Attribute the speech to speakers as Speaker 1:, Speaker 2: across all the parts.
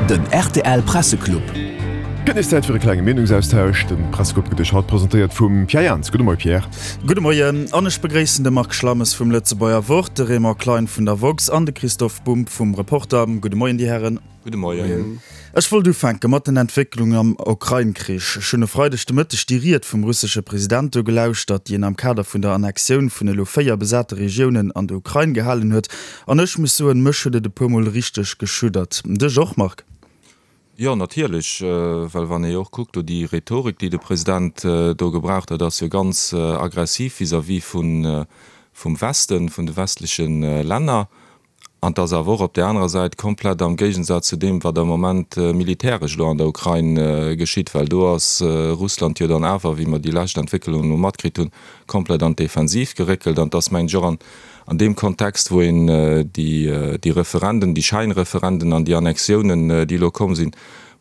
Speaker 1: Den rtl Presseclub.
Speaker 2: Gëtt nees Zäit fir e klenge Meenungsaustausch. De Presseclub gëtt Iech haut presentéiert vum Pierre Jans. Gudde Moie Pierre.
Speaker 3: Gudde Moien an ech begréissen de Marc Schlammes vum Lëtzebuerger Wort, de Raymond Klein vun der woxx an de Christoph Bumb vum Reporter. Gudde Moien, Dir Hären.
Speaker 4: Gudde Moien.
Speaker 3: Ech wollt ufänke mat den Entwécklungen am Ukrain-Krich. Ech hunn e Freideg de Mëtteg déi Ried vum russesche President do gelauschtert, déi en am Kader vun der Annexioun vun elo 4 besate Regiounen an der Ukrain gehalen huet. An ech muss soen, mech huet et e puer Mol richteg geschuddert. Dech och, Marc?
Speaker 4: Jo, natierlech, well wann ee jo och kuckt, do déi Rhetorik, déi de President do gebraucht huet, ass jo ganz aggressiv vis-à-vis vum Westen, vun de westleche Länner. An et ass awer och op där anerer Säit komplett am Géigensaz zu deem, wat am Moment militäresch elo an der Ukrain geschitt, well do ass Russland jo dann awer, wéi mer déi lescht Entwécklungen elo matkritt hunn, komplett an d'Defensiv geréckelt. An et ass, mengen ech, och an an deem Kontext, wou een déi Referenden, déi Schäinreferenden an déi Annexiounen, déi elo komm sinn,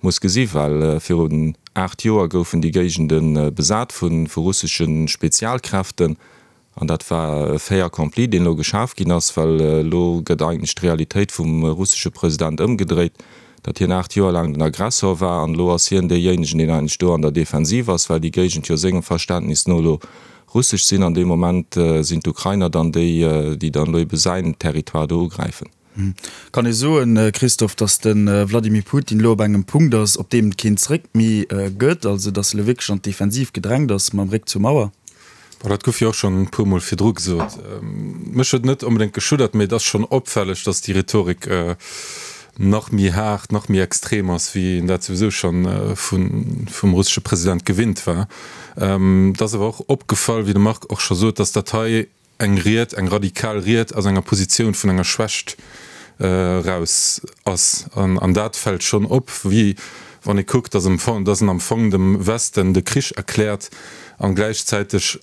Speaker 4: muss gesi well virun 8 Joer goufen déi Géigende besat vu russesche Spezialkräften. An dat war e Fait accompli, deen elo geschaf ginn ass, well elo gëtt eigentlech d'Realitéit vum russesche President ëmgedréit, datt hien 8 Joer laang den Aggressor war an elo ass hien deejéinegen, deen eigentlech do an der Defensiv ass, well déi Géigend jo sengem Verständnis no elo russesch sinn. An deem Moment sinn d'Ukrainer dann déi, déi dann elo ebe säin Territoire do ugräifen.
Speaker 3: Kann ee soen, Christophe, datt de Vladimir Putin elo op engem Punkt ass, op deem et keen Zréck méi gëtt, also datt e elo wierklech an d'Defensiv gedrängt ass mam Réck zur Mauer?
Speaker 5: Bon, dat gouf jo och schonn e puer Mol virdru gesot. Mech huet et net onbedéngt geschuddert, mee et ass schonn opfälleg, datt déi Rhetorik nach méi haart, nach méi extrem ass, wéi een dat souwisou schonn vum russesche President gewinnt war. Et ass awer och opgefall, wéi de Marc och scho sot, datt dat hei eng Ried, eng radikal Ried aus enger Positioun vun enger Schwächt eraus ass. An dat fält schonn op, wéi wann ee kuckt, datt en am Fong dem Westen de Krich erkläert an gläichzäiteg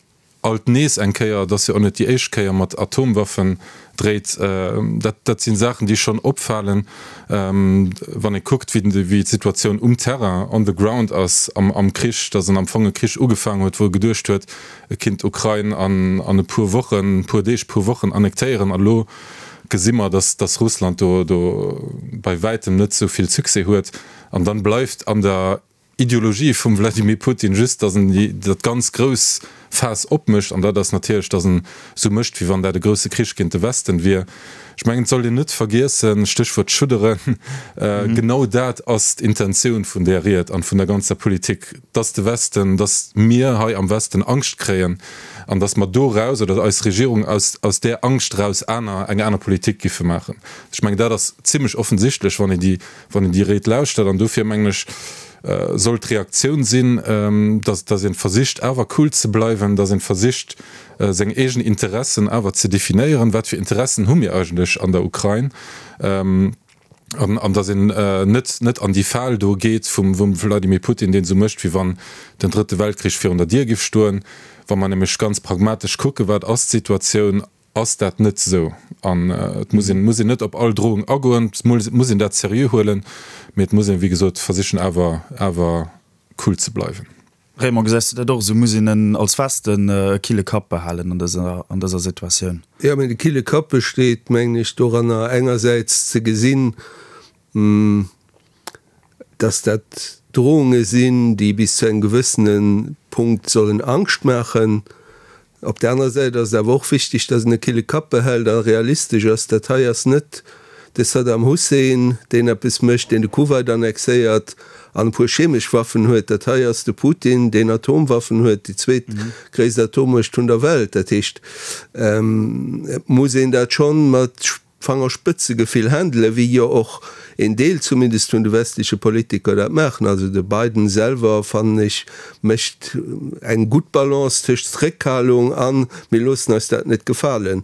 Speaker 5: alt nees eng Kéier, et ass jo och net déi éischt Kéier, mat Atomwaffen dréit. Dat si Saachen, déi schonn opfalen, wann ee kuckt, wéi d'Situatioun um Terrain, on the ground ass am Krich, datt en am Fong e Krich ugefaangen huet, wou e geduecht huet, E kinnt d'Ukrain an e puer Wochen, puer Deeg, puer Wochen annektéieren. An elo gesi mer, datt datt Russland do do bei wäitem net esou vill Succès huet. An dann bleift an der Ideologie vum Vladimir Putin just, datt en déi dat ganz grouss Faass opmécht. An dat ass natierlech, datt en esou mécht, wéi wann dat e grousse Krich géint de Westen wier. Ech mengen, et sollt een net vergiessen, Stéchwuert schudderen, genau dat ass d'Intentioun vun där Ried an vun der ganzer Politik, dass de Westen, dass mir hei am Westen Angscht kréien an dass mer doraus, oder eis Regierung aus aus där Angscht eraus aner, eng aner Politik giffe maachen. Ech mengen, dat ass zimlech offensichtlech, wann een déi, wann een déi Ried lauschtert. An dofir mengen ech, soll d'Reaktioun sinn, dass, dass ee versicht awer cool ze bleiwen, dass ee versicht, seng eegen Interessen awer ze definéieren, Wat fir Interessen hu mir eigentlech an der Ukrain? An datt een net net an déi Fal do geet vum Vladimir Putin, deen esou mécht, wéi wann den Drëtte Weltkrich virun der Dier giff stoen. Wa mer nämlech ganz pragmatesch kucken, wat ass d'Situatioun, ass dat net esou. An et muss een muss een net op all Drohung agoen, et muss een dat seriö huelen, mee et muss een, wéi gesot, versichen awer awer cool ze bleiwen.
Speaker 3: Raymond, gesäis du dat och esou? Muss een als Westen e kille Kapp behalen an dëser, an dëser Situatioun?
Speaker 6: Jo, mee de kille Kapp besteet, mengen ech, doranner engersäits ze gesinn, dass dat Drohunge sinn, déi bis zu engem gewëssene Punkt sollen Angscht maachen. Op der anerer Säit ass et awer och wichteg, dass een e kille Kapp behält a realistesch ass. Dat hei ass net de Saddam Hussein, deen eppes mécht, deen de Kuwait annexéiert an e puer chemesch Waffen huet. Dat hei ass de Putin, deen Atomwaffen huet, déi zweetgréisst Atommuecht vun der Welt. Dat heescht, et muss een dat schonn mat Fangerspëtzegefill handelen, wéi jo och een Deel zumindest vun de westleche Politiker dat maachen. Also de Biden selwer, fannen ech, mécht eng gutt Balance tëscht Zréckhalung an mir loossen eis dat net gefalen.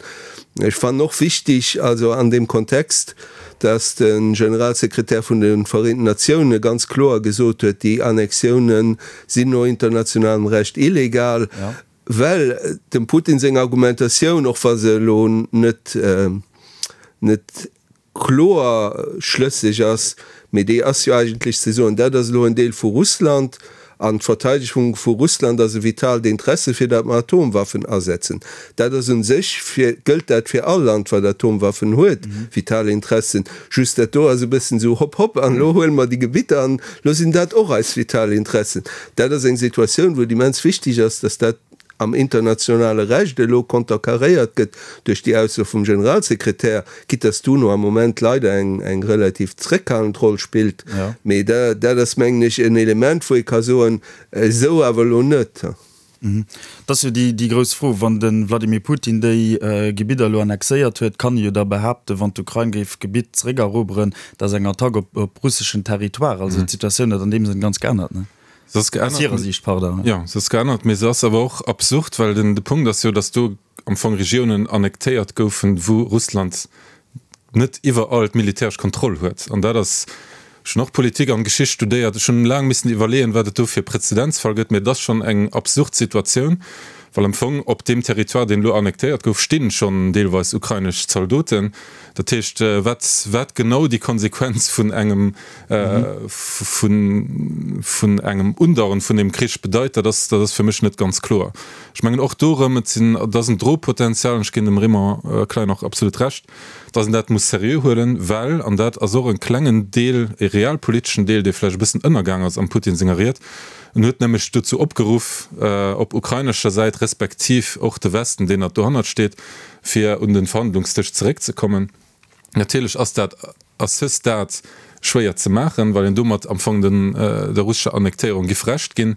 Speaker 6: Ech fannen och wichtig, also an deem Kontext, dass de Generalsekretär vun de Vereenten Natioune ganz kloer gesot huet, déi Annexiounen sinn no internationalem Recht illegal. Well dem Putin seng Argumentatioun, och wa se elo net net kloer schlësseg ass, mee déi ass jo eigentlech ze soen, dat ass elo en Deel vu Russland. An d'Verteidegung vu Russland ass e vitaalt Interesse, fir dat mer Atomwaffen asetzen. Dat ass un sech fir, gëllt dat fir all Land, wat Atomwaffen huet, vital Interessen. Just dat do ass e bëssen esou hopp hopp an elo huele mer déi Gebitter an elo sinn dat och eis vital Interessen. Dat ass eng Situatioun, wou et immens wichteg ass, dass dat am internationale Recht elo konterkaréiert gëtt duerch déi Ausso vum Generalsekretär, quitte dass d'UNO am Moment leider eng eng relativ zréckhalend Roll spillt. Mee dat ass, mengen ech, en Element, wou ee ka soen, esou awer elo net.
Speaker 3: Et ass jo déi grouss Fro, wann de Vladimir Putin déi Gebidder elo annexéiert huet, kann e jo da behaapten, wann d'Ukrain géif d'Gebitt zeréckeroberen, dat ass eng Attack op russeschen Territoire. Also d'Situatioun huet an deem Sënn ganz geännert, ne?
Speaker 5: Se ass geännert. Aus hirer Siicht, pardon. Jo, se ass geännert, mee se ass awer och absurd, well den de Punkt ass jo, datt do am Fong Regiounen annektéiert goufen, wou Russland net iwwerall d'militäresch Kontroll huet. An dat ass, ech hunn och Politik an Geschicht studéiert, ech hunn laang missen iwwerleeën, wat et do fir Prezedenzfall gëtt, mee et ass schonn eng absurd Situatioun, well am Fong op deem Territoire, deen elo annektéiert gouf, stinn schonn deelweis ukrainesch Zaldoten. Dat heescht, wat, wat genau déi Konsequenz vun engem, vun, vun engem Undauern vun deem Krich bedeit, dat ass, dat ass fir mech net ganz kloer. Ech mengen och do erëm, et sinn, et ass en Drohpotenzial, an ech ginn dem Raymond Klein och absolut Recht, dass een dat muss seriö huelen, well, an dat ass och e klengen Deel, e realpoliteschen Deel, dee vläicht e bëssen ënnergaang ass am Putin senger Ried, en huet nämlech dozou opgeruff, op ukrainescher Säit respektiv och de Westen, deen nach dohannert steet, fir un den Verhandlungsdësch zeréckzekommen. Natierlech ass dat à ce stade schwéier ze maachen, well een domat am Fong den der russescher Annektéierung giff Recht ginn.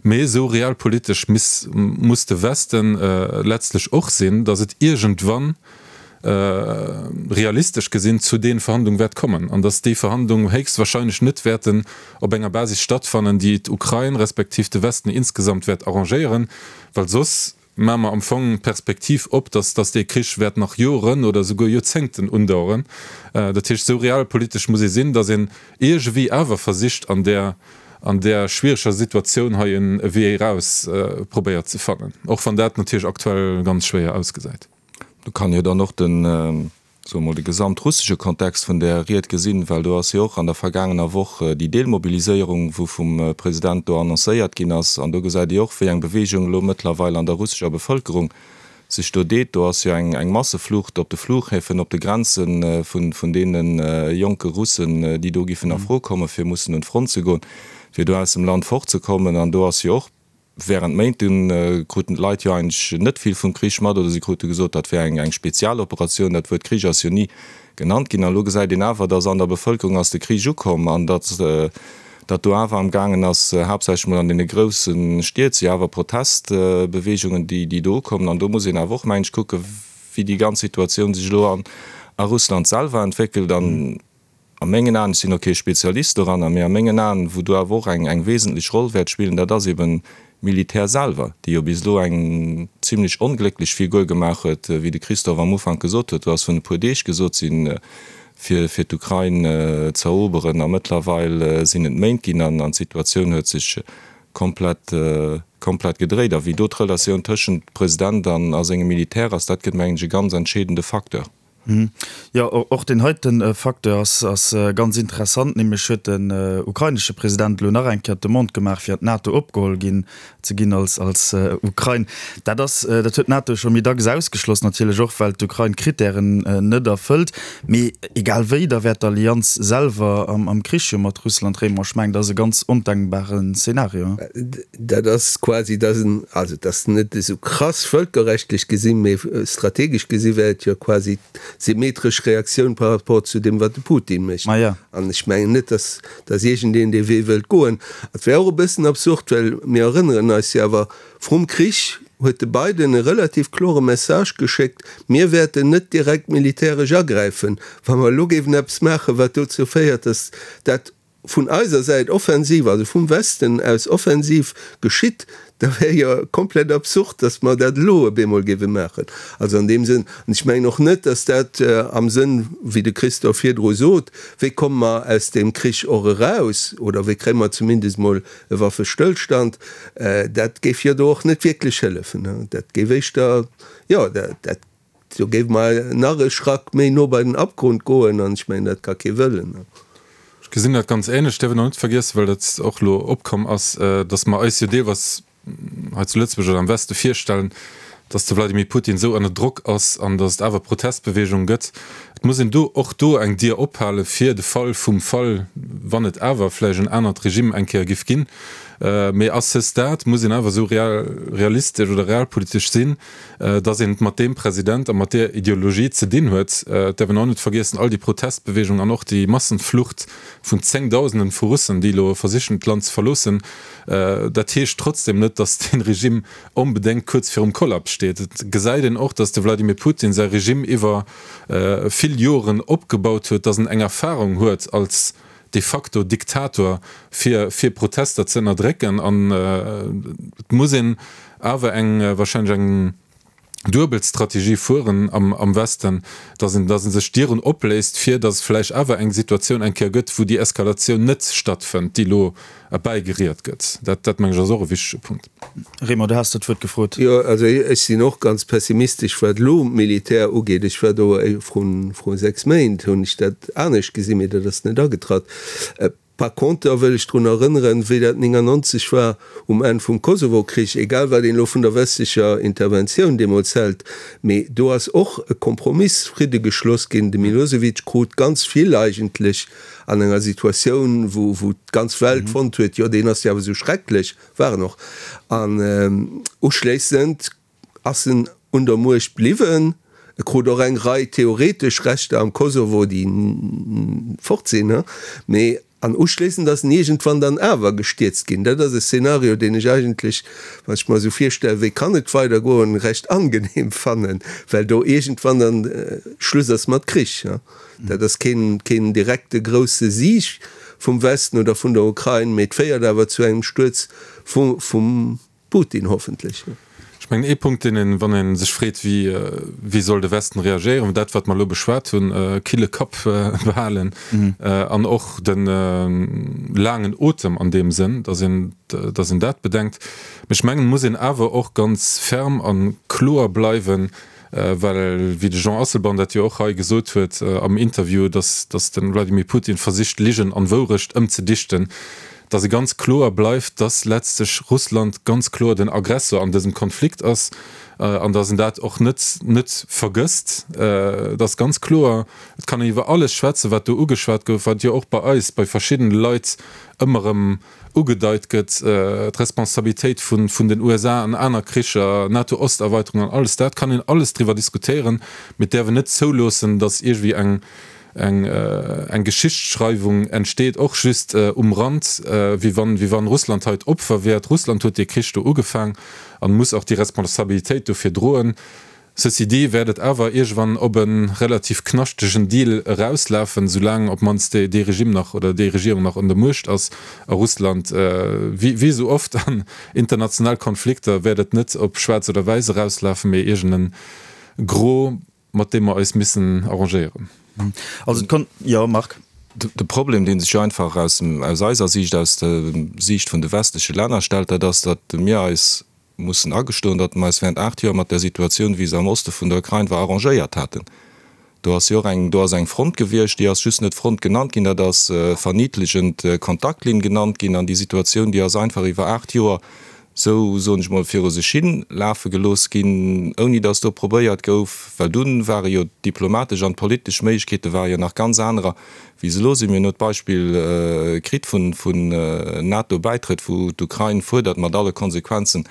Speaker 5: Mee esou realpolitesch miss muss de Westen letztlech och sinn, datt et iergendwann realistesch gesinn zu den Verhandlung wäert kommen an datt déi Verhandlung héchstwahrscheinlech net wäerten op enger Basis stattfannen, déi d'Ukrain respektiv de Westen insgesamt wäert arrangéieren, well soss Maache mer am Fong d'Perspektiv op, dass dass dee Krich wäert nach Joren oder esouguer Joerzéngten undauern. Dat heescht, esou realpolitesch muss ee sinn, dass een iergewéi awer versicht, an där an där schwiereger Situatioun hei e Wee eraus probéiert ze fannen, och wann dat natierlech aktuell ganz schwéier ausgesäit.
Speaker 4: Do kann jo dann och den soe mol, de gesamtrussesche Kontext vun där Ried gesinn, well do ass jo och an der vergaangener Woch déi Deelmobiliséierung, wou vum President do annoncéiert ginn ass, an do gesäit ee och, wéi eng Bewegung elo mëttlerweil an der russescher Bevëlkerung sech do deet. Do ass jo eng Masseflucht op de Flughäfen, op de Grenze vun deene jonke Russen, déi do giffen a Fro kommen, fir mussen un d'Front ze goen, fir do aus dem Land fortzekommen. An do ass jo och Während Méint dunn kruten d'Leit jo eigentlech net vill vum Krich mat, oder si krute gesot, dat wär eng Spezialoperatioun. Dat Wuert Krich ass jo ni genannt ginn. An elo gesäit een awer, datt an der Bevëlkerung ass de Krich ukomm an datt datt do awer am gaangen ass, haaptsächlech mol an deene grousse Stied si awer Protestbeweegungen, déi déi do ukommen. An do muss een awer och, mengen ech, kucken, wéi déi ganz Situatioun sech elo a Russland selwer entwéckelt. An A mengen Aen, ech sinn och kee Spezialist doranner, mee a mengen Aen, wou do awer och eng eng wesentlech Roll wäert spillen, dat ass eben d'Militär selwer, déi jo bis elo eng zimlech onglécklech Figur gemaach huet, wéi de Christophe am Ufank gesot huet. Do ass vun e puer Deeg gesot sinn, fir fir d'Ukrain ze eroberen, a mëttlerweil sinn et Méint ginn an d'Situatioun huet sech komplett komplett gedréit. A wéi do d'Relatioun tëschent President an a sengem Militär ass, dat gëtt, mengen ech, e ganz entscheedende Facteur.
Speaker 3: Jo, och deen heite Facteur ass ganz interessant, nämlech huet den ukrainesche President elo nach eng Kéier d'Demande gemaach, fir an d'NATO opgeholl ginn ze ginn als Ukrain. Dat ass, dat huet d'NATO scho méi dacks ausgeschloss, natierlech och well d'Ukrain d'Krittären net erfëllt. Mee egal wéi, da wär d'Allianz selwer am Krich jo mat Russland. Raymond, ech mengen, dat ass e ganz ondenkbaren Szenario.
Speaker 6: Dat ass quasi, dat ass en, also dat ass net esou krass vëlkerrechtlech gesinn, mee strategesch gesi wär et jo quasi d'symmetresch Reaktioun par rapport zu deem, wat de Putin mécht. An ech mengen net, datt, datt iergendeen dee Wee wëllt goen. Et wär och e bëssen absurd, well mir erënneren eis jo awer, vrum Krich huet de Biden e relativ klore Message geschéckt, Mir wäerten net direkt militäresch agräifen, wa mer elo géifen eppes maachen, wat dozou féiert, datt dat vun eiser Säit offensiv, also vum Westen aus offensiv geschitt, da wär jo komplett absurd, datt mer dat elo op eemol géife maachen. Also an deem Sënn, an ech mengen och net, datt dat am Sënn, wéi de Christophe virdru sot, wéi komme mer aus deem Krich och eraus oder wéi kréie mer zumindest emol e Waffestëllstand, dat géif jo do och net wierklech hëllefen. Dat géif éischter, jo, dat Do géife mer nach e Schrack méi no bei den Abgrund goen, an ech mengen, dat ka kee wëllen.
Speaker 5: Ech. gesinn dat ganz ähnlech. Däerf een och net vergiessen, well dat och elo opkomm ass, datt mer eis jo deelweis hei zu Lëtzebuerg oder am Weste virstellen, datt de Wladimir Putin esou ënner Drock ass an datt et awer Protestbeweegunge gëtt. Et muss een do och do eng Dier ophale fir de Fall vum Fall, wann et awer vläicht en anert Regime eng Kéier giff ginn. Mee à ce stade muss een awer esou realistesch oder realpolitesch sinn, datt een et mat deem President a mat deer Ideologie ze dinn huet. Et däerf een och net vergiessen, all déi Protestbeweegung an och déi Massenflucht vun Zéngdausenden vu Russen, déi elo versichen d'Land ze verloossen, dat heescht trotzdem net, datt dee Regime onbedéngt kuerz virum Kollaps steet. Et gesäit een och, datt de Wladimir Putin säi Regime iwwer vill Joren opgebaut huet, datt en eng Erfahrung huet als de facto Diktator, fir fir Protester ze ënnerdrécken. An et muss een awer eng wahrscheinlech eng duebel Strategie fueren am am Westen, datt een datt ee sech Dieren opléisst, fir datt et vläicht awer eng Situatioun eng Kéier gëtt, wou déi Eskalatioun net stattfënnt, déi elo erbäigeriet gëtt. Dat dat meng ech ass och e wichtege Punkt.
Speaker 3: Raymond, du has dat Wuert gefrot.
Speaker 6: Jo, also ech sinn och ganz pessimistesch wat elo d'Militär ugeet. Ech war do vru 6 Méint, hunn ech dat anescht gesinn, mee dat ass net agetratt. Par conter wëll ech drun erënneren, wéi dat 99 war um Enn vum Kosovo-Krich, egal wat een elo vun der westlecher Interventioun deemools hält, mee do ass och e Kompromiss, Fridde geschloss ginn. De Milosevic krut ganz vill eigentlech an enger Situatioun, wou wou d'ganz Welt fonnt huet, jo deen ass jo awer esou schrecklech, war en och. An uschléissend ass en un der Muecht bliwwen. E krut och eng Rei theoretesch Rechter am Kosovo, déi fort sinn, mee an uschléissend ass en iergendwann dann awer gestierzt ginn. Dat ass e Szenario, deen ech eigentlech, wann ech mer esou virstellen, wéi kann et weidergoen, recht angenehm fannen, well do iergendwann dann Schluss ass mat Krich. Dat ass keen, keen direkte grousse Sieg vum Westen oder vun der Ukrain, mee et féiert awer zu engem Stuerz vum Putin hoffentlech.
Speaker 5: Ech mengen, ee Punkt, deen een, wann ee sech freet, wéi, wéi soll de Westen reagéieren, dat, wat mer elo beschwat hunn, kille Kapp behalen an och de laangen Otem an deem Sënn, datt een, datt een dat bedenkt. Mee ech mengen, et muss een awer och ganz ferm a kloer bleiwen, Well, wéi de Jean Asselborn dat jo och hei gesot huet am Interview, datt datt de Wladimir Putin versicht Ligen an Wourecht ëmzedichten, datt e ganz kloer bleift, datt letztlech Russland ganz kloer den Aggressor an dësem Konflikt ass an datt en dat och net net vergësst. Et ass ganz kloer, et kann een iwwer alles schwätzen, wat do ugeschwat gouf, wat jo och bei eis, bei verschiddene Leit ëmmer erëm ugedeit gëtt, d'Responsabilitéit vun den USA an aner Kricher, NATO-Osterweiterung an alles dat, kann een alles driwwer diskutéieren, mee et däerf een net zouloossen, datt iergendwéi eng eng Geschichtsschreiwung entsteet, och just um Rand, wéi wann wéi wann Russland hei d'Opfer wär. Russland huet dee Krich do ugefaang an muss och déi Responsabilitéit dofir droen. Ceci dit wäert et awer iergewann op e relativ knaschtegen Deal erauslafen, soulaang op d'mannst dee Regime nach oder déi Regierung nach un der Muecht ass a Russland. Wéi esou oft an international Konflikter wäert et net op schwaarz oder wäiss erauslafen, mee iergend en Gros, mat deem mer eis missen arrangéieren.
Speaker 3: Also et konnt, jo Marc?
Speaker 4: De Problem, dee sech jo einfach aus eiser Siicht, aus der Siicht vun de westleche Länner stellt, dat ass, datt mir eis mussen agestoen, datt mer eis während 8 Joer mat där Situatioun, wéi se am Oste vun der Ukrain war, arrangéiert haten. Do ass jo och eng, do ass eng Front gewiescht, déi ass just net Front genannt ginn, dat ass verniedlichend Kontaktlinn genannt ginn. An déi Situatioun, déi ass einfach iwwer 8 Joer esou, soen ech mol, viru sech hi lafe gelooss ginn, ouni datt do probéiert gouf, well dunn ware jo d'diplomatesch an d'politesch Méiglechkeete ware jo nach ganz anerer, wéi se elo sinn. Mir hunn elo d'Beispill kritt vun NATO-Bäitrëtt, wou d'Ukrain fuerdert, mat alle Konsequenzen,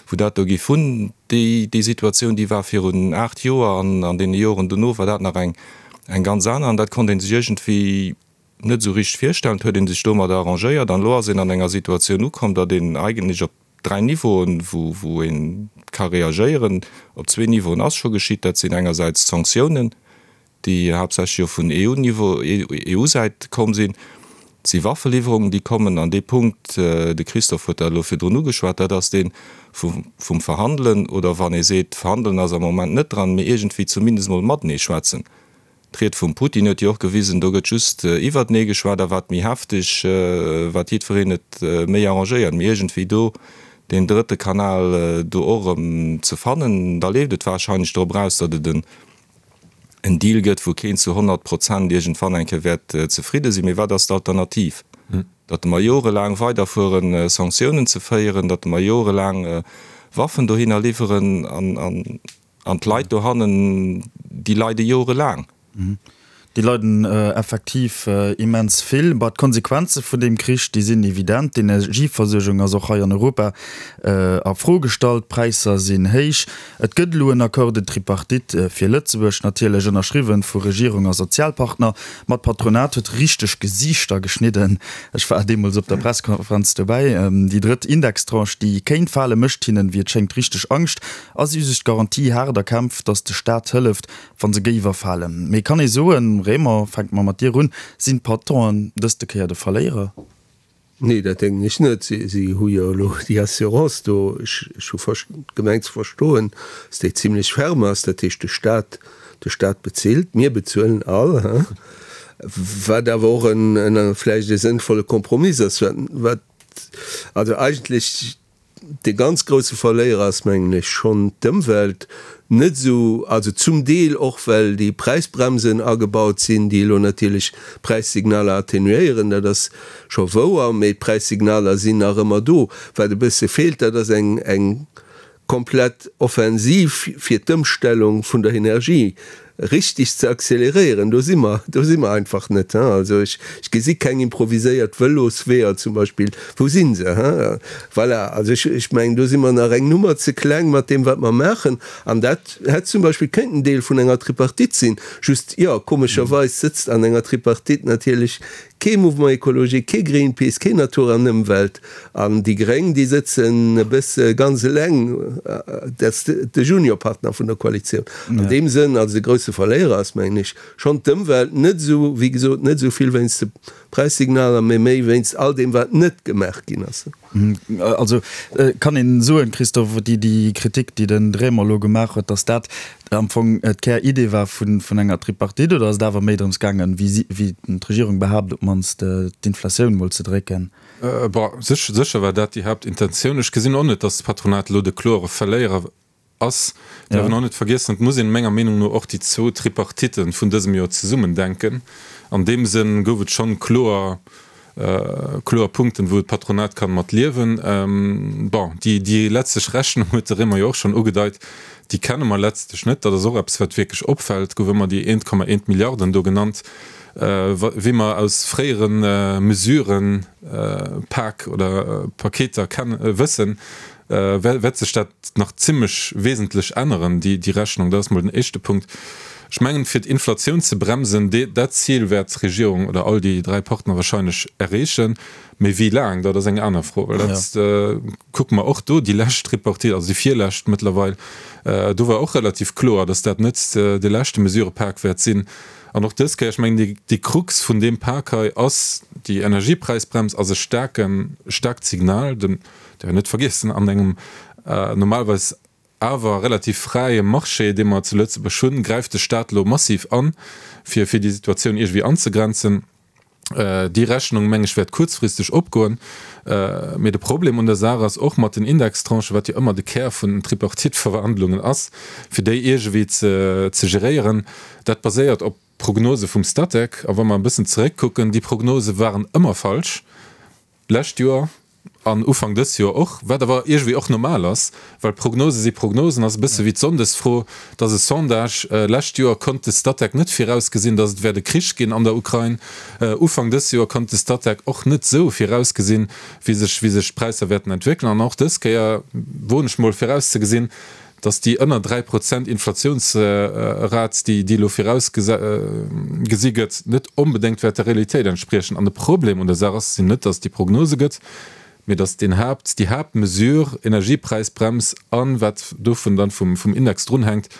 Speaker 4: wou dat do géif hunn. Déi Situatioun, déi war virun 8 Joer an an deene Joren dono war dat nach eng ganz aner. An dat konnt ee sech iergendwéi net esou richteg virstellen. Et huet ee sech domadder arrangéiert an elo ass een an enger Situatioun ukomm, datt een eigentlech op dräi Niveauen, wou ee ka reagéieren. Op zwee Niveauen ass scho geschitt, dat sinn engersäits d'Sanktiounen, déi haaptsächlech jo vun EU-Niveau, EU-Säit komm sinn. Et si Waffeliwwerungen, déi kommen. An dee Punkt, de Christophe huet dat elo virdrun ugeschwat, dat ass dee vum Verhandelen, oder wann ee seet, Verhandelen ass am Moment net dran, mee iergendwéi zumindest emol matenee schwätzen. D'Ried vum Putin huet jo och gewisen, do gëtt just iwwertenee geschwat a wat méi hefteg, wat jiddwereen et méi arrangéiert. Mee iergendwéi do deen drëtte Kanal do och erëm ze fannen, da leeft et warscheinlech drop eraus, datt et en. En Deal gëtt, wou keen zu 100 Prozent iergendwann eng Kéier wäert zefridde sinn. Mee wat ass d'Alternativ? Datt mer jorelaang weiderfueren, Sanktiounen ze féieren, datt mer jorelaang Waffen dohinner liwweren an d'Leit dohannen, déi leide jorelaang.
Speaker 3: Déi leiden effektiv immens vill. Bah, d'Konsequenze vun deem Krich, déi sinn evident. D'Energieversuergung ass och hei an Europa a Fro gestallt, d'Präisser sinn héich. Et gëtt elo en Accord de tripartite fir Lëtzebuerg, natierlech ënnerschriwwen vu Regierung a Sozialpartner. Ma d'Patronat huet richteg Gesiichter geschnidden. Ech war deemools op der Pressekonferenz dobäi. Déi drëtt Indextranche, déi kéint falen, mécht hinnen, wéi et schéngt, richteg Angscht. A si hu sech d'Garantie haart erkämpft, datt de Staat hëlleft, Wa se géif erfalen. Mee kann ee soen, Raymond, fänke mer mat dir un, sinn d'Patronen dëste Kéier de Verléierer?
Speaker 6: Nee, dat denken ech net. Si hu jo elo déi Assurance do. Ech hu gemengt ze verstoen, dass déi zimlech ferme ass. Dat heescht, de Stat, de Stat bezilt, mir bezuelen all, hein, wat awer och en vläicht e sënnvolle Kompromiss ass, wat also eigentlech De ganz grousse Verléierer ass, mengen ech, schonn d'Ëmwelt. Net esou, also zum Deel och, well déi Präisbremsen agebaut sinn, déi elo natierlech d'Präissignaler atténuéieren, dat ass scho wouer, mee d'Präissignaler sinn nach ëmmer do. Wat e bësse feelt, dat ass eng, eng komplett Offensiv fir d'Ëmstellung vun der Energie richteg ze acceleréieren, do si mer, do si mer einfach net. Also ech, ech gesi keng improviséiert Vëlosweeër zum Beispill. Wou si se? Voilà, also ech, ech mengen, do si mer nach eng Nummer ze kleng mat deem, wat mer maachen. An dat hätt zum Beispill kéinten Deel vun enger Tripartite sinn. Just, jo, komescherweis sëtzt an enger Tripartite natierlech kee Mouvement écologique, kee Greenpeace, kee Natur an Ëmwelt. An déi Gréng, déi sëtzen e bësse ganz eleng, dat ass de Juniorpartner vun der Koalitioun. An deem Sënn, also de grousse Verléierer ass, mengen ech, schonn d'Ëmwelt, net esou, wéi gesot, net esou vill wéinst de Präissignaler, mee méi wéinst all deem, wat net gemaach ginn ass.
Speaker 3: Also kann een soen, Christophe, déi Kritik, déi den Raymond elo gemaach huet, datt dat am Fong d'Kär-Idee war vun enger Tripartite, oder ass et awer méi drëms gaangen, wéi d'Regierung behaapt, op d'mannst d'Inflatioun mol ze drécken?
Speaker 5: Bon, sécher war dat déi Haaptintentioun. Ech gesinn och net, datt d'Patronat elo de klore Verléierer ass. Däerf een och net vergiessen, et muss een menger Meenung no och déi zwou Tripartite vun dësem Joer zesummen denken. An deem Sënn gouf et schonn kloer, kloer Punkten, wou d'Patronat kann mat liewen. Bon, déi, déi letztlech Rechnung huet de Raymond jo och schonn ugedeit, déi kenne mer letztlech net. Dat ass och eppes, wat wierklech opfält. Et gouf ëmmer déi 1,1 Milliarden do genannt, wéi mer aus fréiere Mesuren, Pak oder Paketer kennen, wëssen, wäert sech dat nach zimlech wesentlech änneren, déi Rechnung. Dat ass mol den éischte Punkt. Ech mengen, fir d'Inflatioun ze bremsen, dat Zil wäert d'Regierung oder all déi dräi Partner wahrscheinlech erreechen. Mee wéi laang, dat ass eng aner Fro. Well dat kucke mer och do, déi lescht Tripartite, also déi virlescht mëttlerweil, do war och relativ kloer, datt dat net de leschte Mesurëpak wäert sinn. An och dës Kéier, ech mengen, déi Krux vun deem Pak hei ass, déi Energiepräisbrems ass e staarken, staarkt Signal. Däerf een net vergiessen, an engem normalerweis awer relativ fräie Marché, dee mer zu Lëtzebuerg hunn, gräift de Staat elo massiv an, fir fir déi Situatioun iergendwéi anzegrenzen. Déi Rechnung, meng ech, wäert kuerzfristeg opgoen. Mee de Problem un der Saach ass och mat den Indextranchen, wat jo ëmmer de Kär vun den Tripartite-Verhandlungen ass, fir déi iergendwéi ze geréieren, dat baséiert op Prognose vum Statec. A wa mer e bëssen zeréckkucken, déi Prognose waren ëmmer falsch. D'lescht Joer an Ufank dës Joer och, wat awer iergendwéi och normal ass, well Prognose si Prognosen, ass e bësse wéi d'Sonndesfro, et ass e Sondage, lescht Joer konnt de Statec net virausgesinn, datt et wäert e Krich ginn an der Ukrain, Ufank dës Joer konnt de Statec och net esou virausgesinn, wéi sech wéi sech d'Präisser wäerten entwéckelen an och dës Kéier woen ech mol virauszegesinn, dass déi ënner 3 Prozent Inflatiounsrat, déi déi elo virausgesi gëtt, net onbedéngt wäert der Realitéit entspriechen. An de Problem un der Saach ass sinn net, dass et déi Prognose gëtt, mee dass deen Haapt, déi Haaptmesure, Energiepräisbrems a wat dovun dann vum vum Index drunhänkt,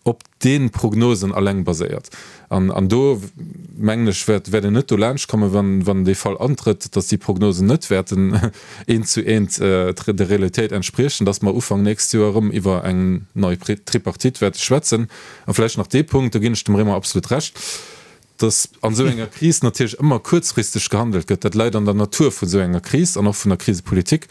Speaker 5: op de Prognosen alleng baséiert. An do, mengen ech, wäert een net dolaanscht kommen, wann dee Fall antrëtt, datt déi Prognosen net wäerten eent zu eent der Realitéit entspriechen, datt mer Ufank nächst Joer erëm iwwer eng nei Tripartite wäerte schwätzen. A vläicht nach dee Punkt, do ginn ech dem Raymond absolut Recht, dass an esou enger Kris natierlech ëmmer kuerzfristeg gehandelt gëtt, dat läit an der Natur vun esou enger Kris an och vun der Krisepolitik,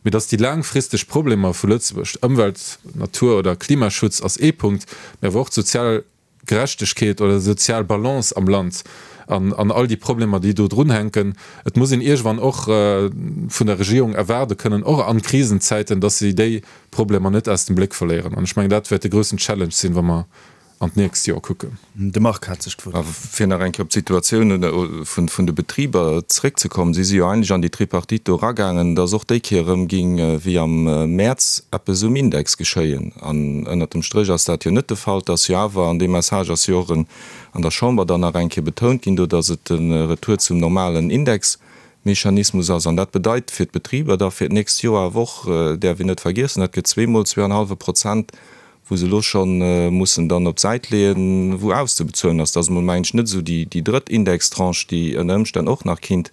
Speaker 5: mee dass déi laangfristeg Problemer vu Lëtzebuerg, Ëmwelt-, Natur oder Klimaschutz ass ee Punkt, mee awer och d'sozial. Gerechtegkeet oder sozial Balance am Land an an all déi Problemer, déi do drunhänken. Et muss een iergendwann och vun der Regierung erwaarde kënnen, och an Krisenzäiten, dass si déi Problemer net aus dem Bléck verléieren. An ech mengen, dat wäert de groussen Challenge sinn, wa mer an d'nächst Joer kucken.
Speaker 3: De Marc hat sech
Speaker 4: d'Wuert. Fir nach eng Kéier op d'Situatioun vun de Betriber zréckzekommen, Si si jo eigentlech an déi Tripartite do eragaangen, datt och déi Kéier erëm géing wéi am Mäerz eppes um Index geschéien. An ënnert dem Stréch ass dat jo net de Fall. Et ass jo awer, an dee Message ass jo och an der Chamber dann nach eng Kéier betount ginn do, datt et de Retour zum normalen Indexmechanismus ass. An dat bedeit fir d'Betriber da fir d'nächst Joer awer och, däerf een net vergiessen, dat gëtt zweemol zweeanhallwe Prozent wou se elo scho mussen dann op d'Säit leeën, wou auszebezuelen ass. Dat ass emol, mengen ech, net esou déi drëtt Indextranche, déi ënner Ëmstänn och nach kinnt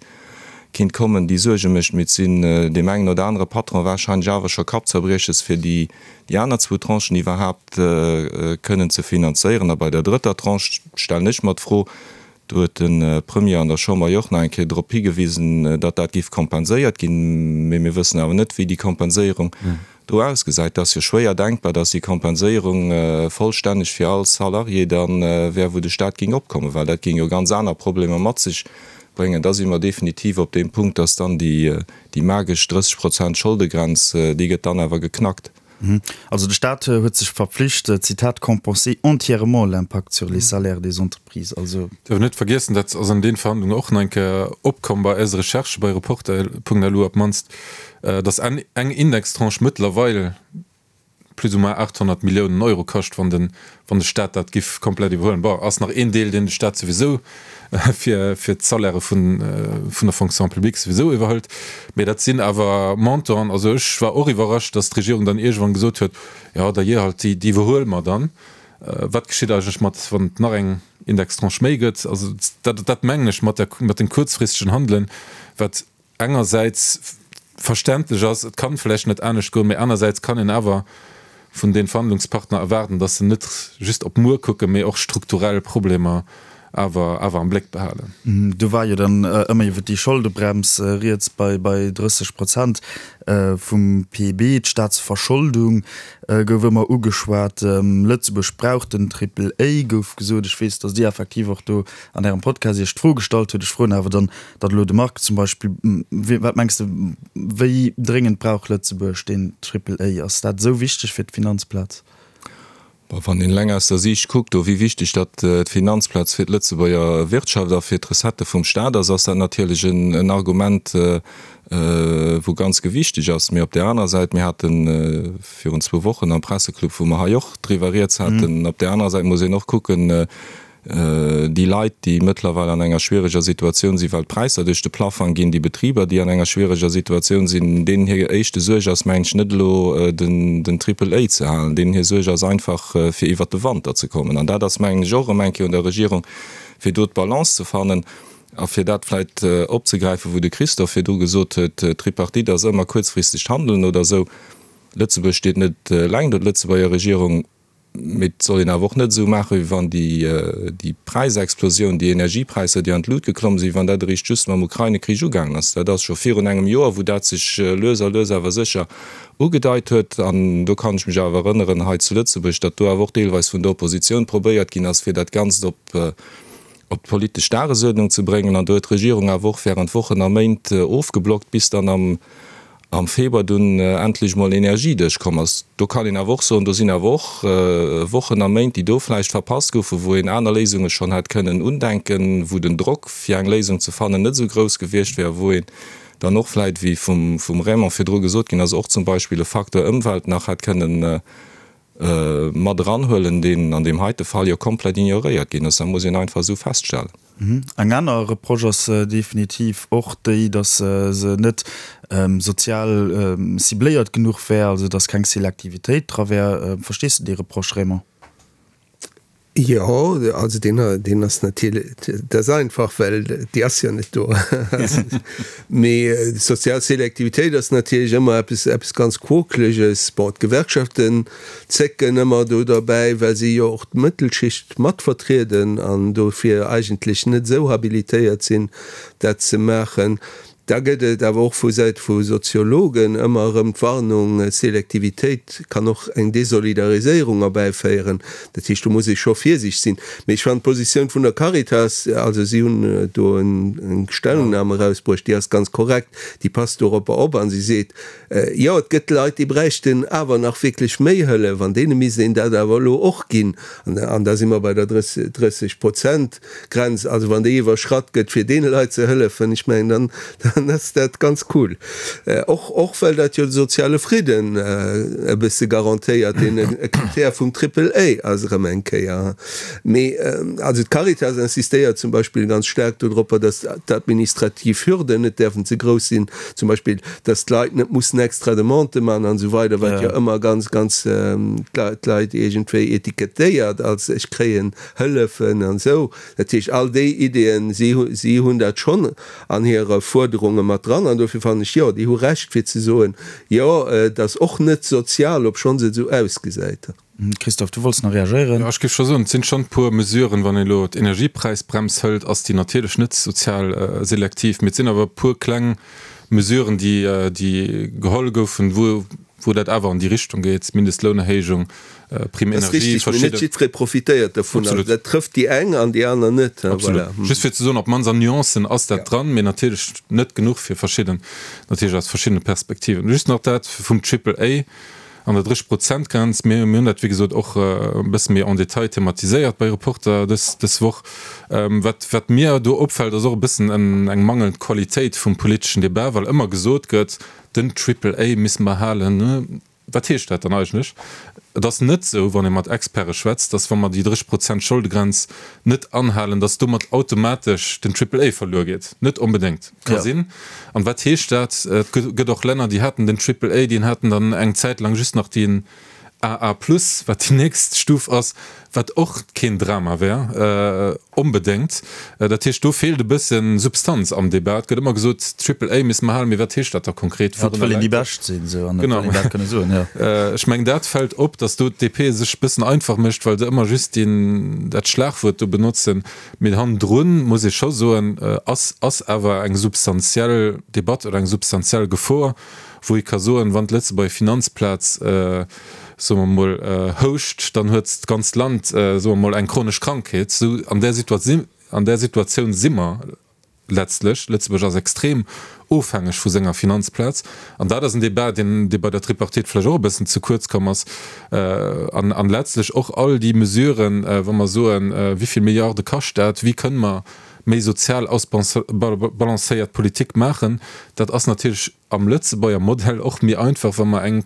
Speaker 4: kinnt kommen, déi Suerge mécht. Mee et sinn deem engen oder anere Patron wahrscheinlech awer scho Kappzerbrieches, fir déi déi aner zwou Tranchen iwwerhaapt kënnen ze finanzéieren. A bei der drëtter Tranche stellen ech mer d'Fro, Do huet de Premier an der Chamber jo och nach eng Kéier drop higewisen, datt dat géif kompenséiert ginn. Mee mir wëssen awer net, wéi déi Kompenséierung do ausgesäit. Et ass jo schwéier denkbar, datt déi Kompenséierung vollstänneg fir all Salarié da wär, wou de Stat géing opkommen, well dat géing jo ganz aner Problemer mat sech bréngen. Da si mer definitiv op deem Punkt, datt dann déi magesch 30 Prozent Scholdegrenz, déi gëtt dann awer geknackt.
Speaker 3: Also de Staat huet sech verpflicht, Zitat, compenser entièrement l'impact sur les salaires des entreprises. Also.
Speaker 5: Dierf net vergiessen, dat ass an den Verhandlungen och nach eng Kéier opkomm bei eise Recherchen, bei Reporter.lu op d'mannst, datt eng Indextranche mëttlerweil plus ou moins 800 Milliounen Euro kascht, wann de wann de Staat dat giff komplett iwwerhuelen. Bon, ass nach een Deel, deen de Staat souwisou fir fir d'Salairë vun vun der Fonction publique souwisou iwwerhëlt, mee dat sinn awer Montanten. Also ech war och iwwerrascht, datt d'Regierung dann iergendwann gesot huet, jo da jee halt, déi déi iwwerhuele mer dann. Wat geschitt eigentlech mat, wann et nach eng Indextranche méi gëtt? Also dat dat mengen ech mat der mat dem kuerzfristegen Handelen, wat engersäits verständlech ass, et kann vläicht net anescht goen, mee anersäits kann een awer vun den Verhandlungspartner erwaarden, dass se net just op muer kucken, mee och strukturell Problemer awer awer am Bléck
Speaker 3: behalen. Do war jo dann ëmmer iwwer déi Scholdebrems rieds bei bei 30 Prozent vum PIB. D'Staatsverscholdung gouf ëmmer ugeschwat. Lëtzebuerg brauch den Triple A, gouf gesot. Ech weess, datt Dir effektiv och do an Ärem Podcast Iech d'Fro gestallt hutt. Ech froen awer dann Datt elo de Marc zum Beispill, wat mengs de, wéi dréngend brauch Lëtzebuerg deen Triple A? Ass dat esou wichteg fir d'Finanzplaz?
Speaker 4: Bon, wann een eleng aus der Siicht kuckt, do wéi wichteg datt d'Finanzplaz fir d'Lëtzebuerger Wirtschaft a fir d'Recettë vum Staat ass, ass dat natierlech en Argument, wou ganz gewichteg ass. Mee op där anerer Säit, mir hate virun zwou Wochen am Presseclub, wou mer hei och driwwer rieds haten, op där anerer Säit muss een och kucken, Déi Leit, déi mëttlerweil an enger schwiereger Situatioun sinn, well d'Präisser duerch de Plaffang ginn, déi Betriber, déi an enger schwiereger Situatioun sinn, deenen hir éischte Suerg ass, mengen ech, net elo den Triple A ze halen, deenen hir Suerg ass einfach, fir iwwert de Wanter ze kommen. An dat ass, mengen ech, och erëm eng Kéier un der Regierung, fir do d'Balance ze fannen. A fir dat vläicht opzegräifen, wou de Christophe virdru gesot huet, d'Tripartite ass ëmmer kuerzfristegt Handeln oder esou. Lëtzebuerg steet net eleng do, d'Lëtzebuerger Regierung. Mee et soll een awer och net esou maachen, wéi wann déi Präisexplosioun, déi Energiepräisser, déi an d'Lut geklomm sinn, wann dat eréischt just mam Ukraine-Krich ugaangen ass. Dat ass scho virun engem Joer, wou dat sech lues a lues awer sécher ugedeit huet. An do kann ech mech awer erënneren hei zu Lëtzebuerg, datt do awer och deelweis vun der Oppositioun probéiert ginn ass, fir dat Ganzt op d'politesch Dagesuerdnung ze bréngen. An do huet d'Regierung awer och während Wochen a Méint ofgeblockt, bis dann am am Februar dunn endlech mol Energie duerchkomm ass. Do kann een awer och soen, do sinn awer och Wochen a Méint, déi do vläicht verpasst goufen, wou een aner Léisunge schonn hätt kënnen undenken, wou den Drock, fir eng Léisung ze fannen, net esou grouss gewiescht wär, wou een dann och vläicht, wéi vum Raymond virdru gesot ginn ass, och zum Beispill e Facteur Ëmwelt nach hätt kënnen mat eranhuelen, deen an deem heite Fall jo komplett ignoréiert ginn ass. Dat muss een einfach esou feststellen.
Speaker 3: Eng aner Reproche ass definitiv och déi, datt se net sozial cibléiert genuch wär, also datt keng Selektivitéit dra wär. Verstees de déi Reproche, Raymond?
Speaker 6: Jo, also deen, deen ass natierlech, dat ass einfach, well déi ass jo net do. Mee sozial Selektivitéit ass natierlech ëmmer eppes, eppes ganz Quokeleges. Bon, d'Gewerkschaften zécken ëmmer do derbäi, well si jo och d'Mëttelschicht mat vertrieden an dofir eigentlech net esou habilitéiert sinn, dat ze maachen. Da gëtt et awer och vu Säit vu Soziologen ëmmer erëm d'Warnung, Selektivitéit kann och eng Desolidariséierung erbäiféieren. Dat heescht, do muss ee scho virsiichteg sinn. Mee ech fannen d'Positioun vun der Caritas, also si hunn do eng Stellungnahme erausbruecht, déi ass ganz korrekt, déi passt doropper op a si seet, Jo, et gëtt Leit, déi bräichten awer nach wierklech méi Hëllef an deene misst een dat awer elo och ginn. An da si mer bei der 30 Prozent. Grenz, also wann déi iwwerschratt gëtt, fir deene Leit ze hëllefen, ech mengen, dann, dann ass dat ganz cool. Och, och well dat jo de soziale Fridden e bësse garantéiert, deen e Krittär vum Triple A ass erëm eng Kéier. Mee also d'Caritas insistéiert zum Beispill ganz staark dodropper, datt d'administrativ Hürden net däerfen ze grouss sinn, zum Beispill datt d'Leit net mussen extra Demandë maachen an esou weider, wat jo ëmmer ganz, ganz d'Leit iergendwéi etikettéiert als ech kréien Hëllefen an esou. Dat heescht, all déi Ideeën, si, si hunn dat schonn an hire Fuerderunge mat dran. An dofir fannen ech, jo, déi hu Recht fir ze soen, jo, et ass och net sozial, obschonns et esou ausgesäit.
Speaker 3: Christophe, du wollts nach reagéieren?
Speaker 5: Jo, ech géif scho soen, et sinn schonn e puer Mesuren. Wann een elo d'Energiepräisbrems hëlt, ass déi natierlech net sozial selektiv, mee et sinn awer e puer kleng Mesuren, déi, déi geholl goufen, wou, wou dat awer an déi Richtung geet, Mindestlounerhéijung, Prime
Speaker 6: Energie, verschidden. Dat ass richtig, mee net jiddweree profitéiert dovun. Also dat trëfft déi eng an déi aner net.
Speaker 5: Absolut. Just fir ze soen, op d'mannst an Nuancen ass dat dran, mee natierlech net genuch fir verschidden, natierlech aus verschiddene Perspektiven. Just nach dat vum Triple A an der 30 Prozent Grenz. Mir hunn dat, wéi gesot, och e bësse méi en détail thematiséiert bei Reporter dës, dës Woch. Wat, wat mir do opfält, ass och e bëssen eng mangelnd Qualitéit vum politeschen Debat, well ëmmer gesot gëtt, Den Triple A misste mer halen. Wat heescht dat dann eigentlech? Et ass net esou, wann ee mat Experte schwätzt, datt wa mer déi 30 Prozent Scholdegrenz net anhalen, datt domat automatesch den Triple A verluer geet. Net onbedéngt. Ka sinn. An wat heescht dat? Et gëtt och Länner, déi haten den Triple A, déi haten dann eng Zäit laang just nach deen AA plus, wat déi nächst Stuf ass, wat och keen Drama wär onbedéngt. Dat heescht, do feelt e bësse Substanz am Debat. Et gëtt ëmmer gesot, Triple A misste mer halen, mee wat heescht dat da konkret?
Speaker 3: Ja, et wëll een déi Bescht sinn, esou, an et wëll een dat kënne soen, jo.
Speaker 5: Ech mengen, dat fält op, datt do d'DP sech e bëssen einfach mécht, well se ëmmer just deen, dat Schlagwuert do benotzen. Mee hannendrun, muss ee scho soen, ass, ass awer eng substantiell Debatt oder eng substantiell Gefor, wou ee ka soen, wann d'Lëtzebuerger Finanzplaz, soe mer emol, houscht, dann huet d'ganzt Land, soe mer emol, eng chronesch Krankheet. Esou an där an där Situatioun si mer letztlech. Lëtzebuerg ass extrem ofhängeg vu senger Finanzplaz. An dat ass en Débat, deen, dee bei der Tripartite vläicht och e bëssen ze kuerz komm ass. An, an letztlech och all déi Mesuren, wa mer soen, wéi vill Milliarde kascht dat, wéi kënne mer méi sozial ausbalancéiert Politik maachen, dat ass natierlech am Lëtzebuerger Modell och méi einfach, wa mer eng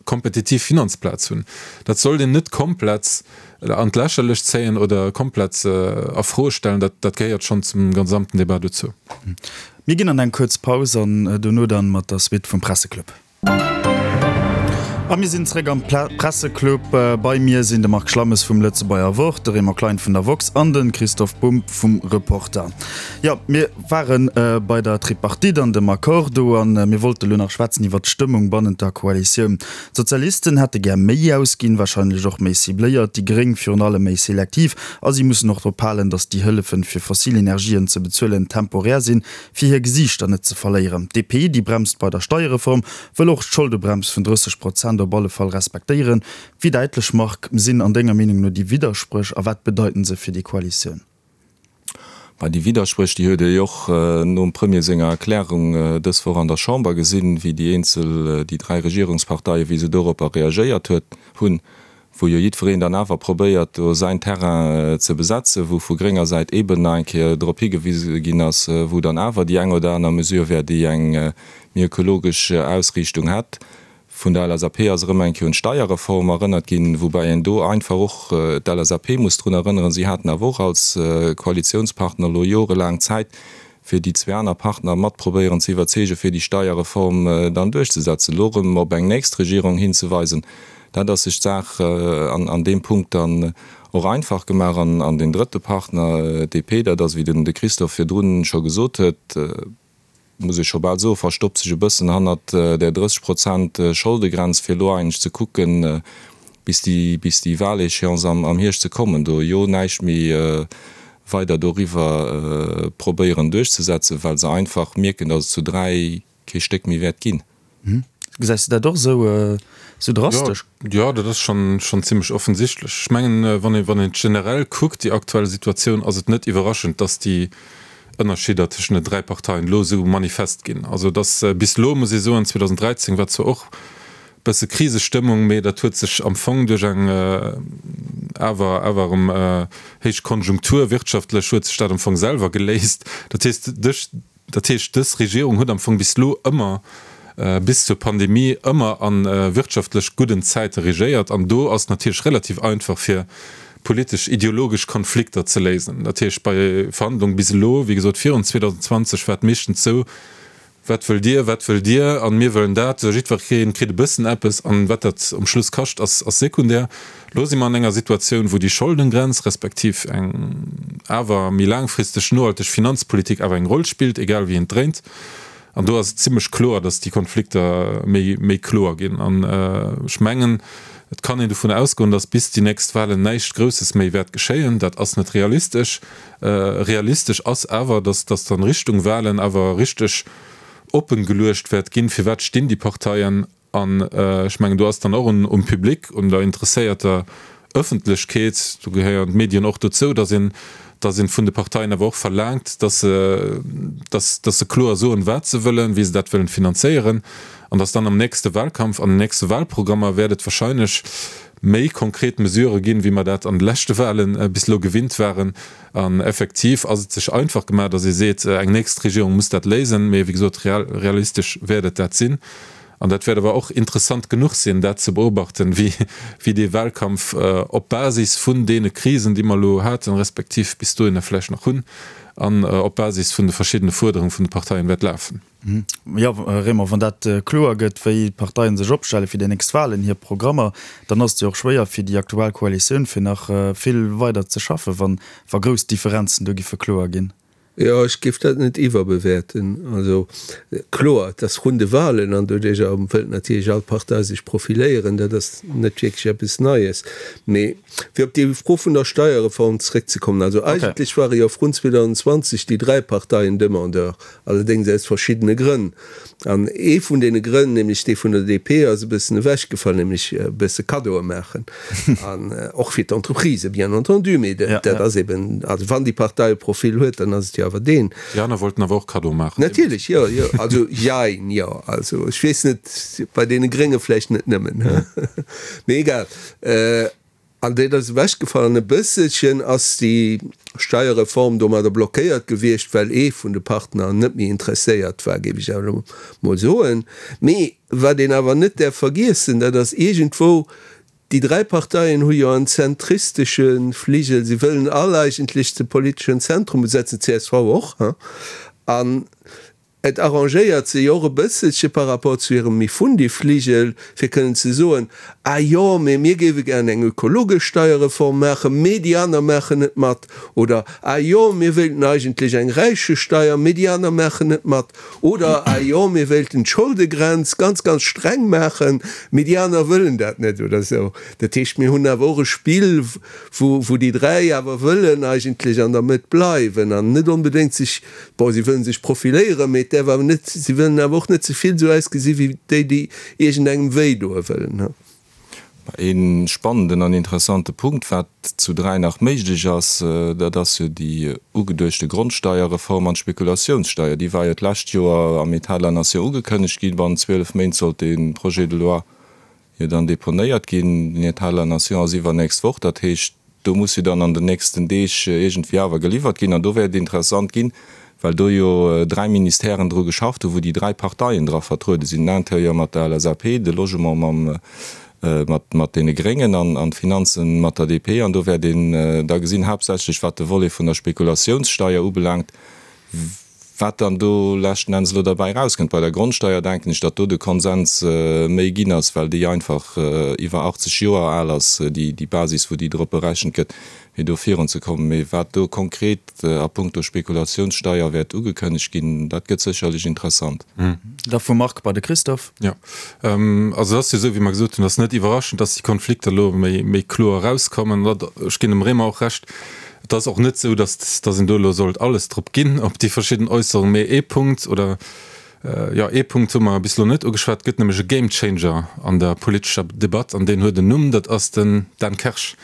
Speaker 5: kompetitiv Finanzplaz hunn. Dat sollt een net komplett an d'Lächerlecht zéien oder komplett a Fro stellen. Dat, dat gehéiert schonn zum gesamten Debat dozou.
Speaker 3: Mir ginn an eng kuerz Paus an dono dann mat der Suite vum Presseclub. A mir sinn zréck am Presseclub. Bei mir sinn de Marc Schlammes vum Lëtzebuerger Wort, de Raymond Klein vun der woxx an de Christoph Bumb vum Reporter. Jo, mir ware bei der Tripartite an dem Accord do a mir wollte lo nach schwätzen iwwert d'Stëmmung bannent der Koalitioun. D'Sozialisten hätte gär méi ausginn, warscheinlech och méi cibléiert, déi Gréng virun allem méi selektiv. A si mussen och drop halen, datt déi Hëllefen, fir fossil Energien ze bezuelen, temporär sinn, fir hir Gesiichter net ze verléieren. D'DP, déi bremst bei der Steierreform, wëll och d'Scholdebremms vun 30 Prozent op alle Fall respektéieren. Wéi däitlech, Marc, sinn an denger Meenung no déi Widderspréch a wat bedeiten se fir déi Koalitioun?
Speaker 4: Bah, déi Widderspréch, déi huet ee jo och nom Premier senger Erklärung dës Woch an der Chamber gesinn, wéi déi eenzel, déi dräi Regierungsparteien, wéi se doropper reagéiert huet, hunn. wou jo jiddwereen dann awer probéiert, do säin Terrain ze besetzen, wou vu grénger Säit eeben nach eng Kéier drop higewise ginn ass, wou dann awer déi eng oder aner Mesure wär, déi eng méi ökologesch Ausriichtung hätt. Vun der LSAP ass erëm eng Kéier un d'Steierreform erënnert ginn, woubäi een do einfach och d'LSAP muss drun erënneren, si haten awer och als Koalitionspartner elo jorelaang Zäit, fir déi zwee aner Partner mat probéieren ze iwwerzeegen, fir déi Steierreform dann duerchzesetzen. Elo erëm op eng nächst Regierung hinzeweisen, dat ass sech d'Saach an deem Punkt dann och einfach gemaach. An deen drëtte Partner, DP, dat ass, wéi den de Christophe virdrun scho gesot huet, muss ech scho bal soen, verstoppt sech e bëssen hannert där 30 Prozent Scholdegrenz, fir elo eigentlech ze kucken, bis déi, bis déi Wahléchéance am Hierscht ze kommen, do jo näischt méi. weider doriwwer probéieren duerchzesetzen, well se einfach mierken, datt et zu 3 kee Stéck méi wäert ginn.
Speaker 3: Gesäis de dat och esou drastesch?
Speaker 5: Jo, dat ass schonn zimmlech offensichtlech. Ech mengen, wann een et generell kuckt, déi aktuell Situatioun, ass et net iwwerraschend, datt déi Ënnerscheeder tëschent den 3 Parteien elo esou manifest ginn. Also et ass bis elo, muss ee soen, 2013 war zwar och bësse Krisestëmmung, mee dat huet sech am Fong duerch eng awer awer erëm héich Konjunktur wirtschaftlech huet sech dat am Fong selwer geléist. Dat heescht, duerch, dat heescht dës Regierung huet am Fong bis elo ëmmer, bis zur Pandemie, ëmmer a wirtschaftlech gudden Zäite regéiert an do ass natierlech relativ einfach fir politesch ideologesch Konflikter ze léisen. Dat heescht bei Verhandlungen bis elo, wéi gesot virun 2020 war et meeschtens esou, Wat wëllt Dir, wat wëllt Dir? An mir wëllen dat. Jiddweree kritt e bëssen eppes. An wat dat um Schluss kascht, ass sekundär. Elo si mer an enger Situatioun, wou déi Scholdengrenz, respektiv eng awer méi laangfristeg nohalteg Finanzpolitik awer eng Roll spillt, egal wéi een et dréint. An do ass et zimlech kloer, datt déi Konflikter méi, méi kloer ginn. An ech mengen, et kann een dovun ausgoen, datt bis déi nächst Wahlen näischt Grousses méi wäert geschéien. Dat ass net realistesch. Realistesch ass awer, datt datt an Richtung Wahlen awer richteg oppen geluecht wäert ginn, firwat stinn déi Parteien. An ech mengen, do ass dann och un um Public, un der interesséierter Ëffentlechkeet, do gehéieren d'Medien och dozou, datt een datt een vun de Parteien awer och verlaangt, datt se datt datt se kloer soen, wat se wëllen, wéi se dat wëllen finanzéieren, an datt dann am nächste Wahlkampf, an den nächste Wahlprogrammer wäert et wahrscheinlech méi konkret Mesurë ginn, wéi mer dat an de leschte Wahle bis elo gewinnt waren. An effektiv ass et sech einfach gemaach, datt ee seet, eng nächst Regierung muss dat léisen. Mee wéi gesot, realistesch wäert et dat sinn. An dat wäert awer och interessant genuch sinn, dat ze beobachten, wéi dee Wahlkampf op Basis vun deene Krisen, déi mer elo haten, respektiv bis dohinner vläicht nach hunn, an op Basis vun de verschiddene Fuerderunge vun de Parteien wäert lafen.
Speaker 3: Jo, Raymond, wann dat kloer gëtt, wéi d'Parteien sech opstelle fir déi nächst Wahlen, hir Programmer, dann ass et jo och schwéier fir déi aktuell Koalitioun, fir nach vill weider ze schaffen, wann wa grouss Differenzen do giffe kloer ginn.
Speaker 6: Jo, ech géif dat net iwwerbewäerten. Also kloer, et ass vrun de Wahlen an doduercher wëllt natierlech all Partei sech profiléieren. Dat ass net wierklech eppes Neies. Mee fir op déi Fro vun der Steierreform zréckzekommen, also eigentlech ware jo vrun 2020 déi 3 Parteien Demandeur Allerdéngs aus verschiddene Grënn. An ee vun deene Grënn, nämlech dee vun der DP, ass e bëssen ewechgefall, nämlech e bësse Kaddoe maachen. An och fir d'Entreprisë bien entendu, mee dat ass eben, also wann déi Partei e Profil huet, dann ass et jo awer deen.
Speaker 5: Déi aner wollten awer och Kaddoe maachen.
Speaker 6: Natierlech, jo, jo. Also jein, jo. Also ech weess net, bei deene Grénge vläicht net nëmmen, mee egal. An dat ass ewechgefall. An e bësselchen ass déi Steierreform domadder blockéiert gewiescht, well ee vun de Partner net méi interesséiert war, géif ech awer elo mol soen. Mee wat een awer net däerf vergiessen, dat ass iergendwou, déi 3 Parteien hu jo en zentristesche Fligel, si wëllen all eigentlech de politeschen Zentrum besetzen, csv och, hein. An Et arrangéiert se jo och e bësselche par rapport zu hirem Mifundi-Fligel, fir kënnen ze soen, Ah jo, mee mir géife gären eng ökologesch Steierreform maachen, mee déi aner maachen net mat. Oder, Ah jo, mir wéilten eigentlech eng Räichesteier, mee déi aner maachen net mat. Oder, Ah jo, mir wéilten d'Scholdegrenz ganz, ganz streng maachen, mee déi aner wëllen dat net. Oder esou. Dat heescht, mir hunn awer och e Spill, wou, wou déi 3 awer wëllen eigentlech an der Mëtt bleiwen an net onbedéngt sech, Bon, si wëllen sech profiléieren, mee et däerf awer net, si wëllen awer och net ze vill esou ausgesi wéi déi, déi iergendengem wéi doe wëllen.
Speaker 4: Ee spannenden an interessante Punkt, wat zu 3 nach méiglech ass, dat ass jo déi ugeduechte Grondsteierreform an d'Spekulatiounssteier. Déi war jo d'lescht Joer am État de la Nation ugekënnegt ginn. Bannent 12 Méint sollt dee Projet de loi jo dann deponéiert ginn. Den État de la Nation ass iwwernächst Woch, dat heescht, do muss jo dann an den nächsten Deeg iergendwéi awer geliwwert ginn. An do wäert et interessant ginn, well do jo 3 Ministèren dru geschafft hunn, wou déi 3 Parteien dra vertruede sinn, den Intérieur mat der LSAP, de Logement mam, mat, mat deene Gréngen an, an d'Finanzen mat der DP. An do wäert een da gesinn, haaptsächlech wat de Volet vun der Spekulatiounssteier ubelaangt, Wat dann do leschten Enns elo derbäi erauskënnt, bei der Grondsteier denken ech, datt do de Konsens méi ginn ass, well déi einfach iwwer 80 Joer al ass, déi Basis, wou déi drop berechent gëtt, fir do virunzekommen. Mee wat do konkret a puncto Spekulatiounssteier wäert ugekënnegt ginn, dat gëtt sécherlech interessant.
Speaker 3: Da vum Marc bei de Christophe.
Speaker 5: Jo, also et ass jo esou, wéi mer gesot hunn, et ass net iwwerraschend, datt déi Konflikter elo méi kloer erauskommen. Ech ginn dem Raymond och Recht. Et ass och net esou, datt datt een do elo sollt alles drop ginn op déi verschidden Äusserungen. Mee ee Punkt oder jo ee Punkt hu mer bis elo net ugeschwat, et gëtt nämlech e Game Changer an der politescher Debatt an deen huet en Numm, dat ass den Dan Kersch.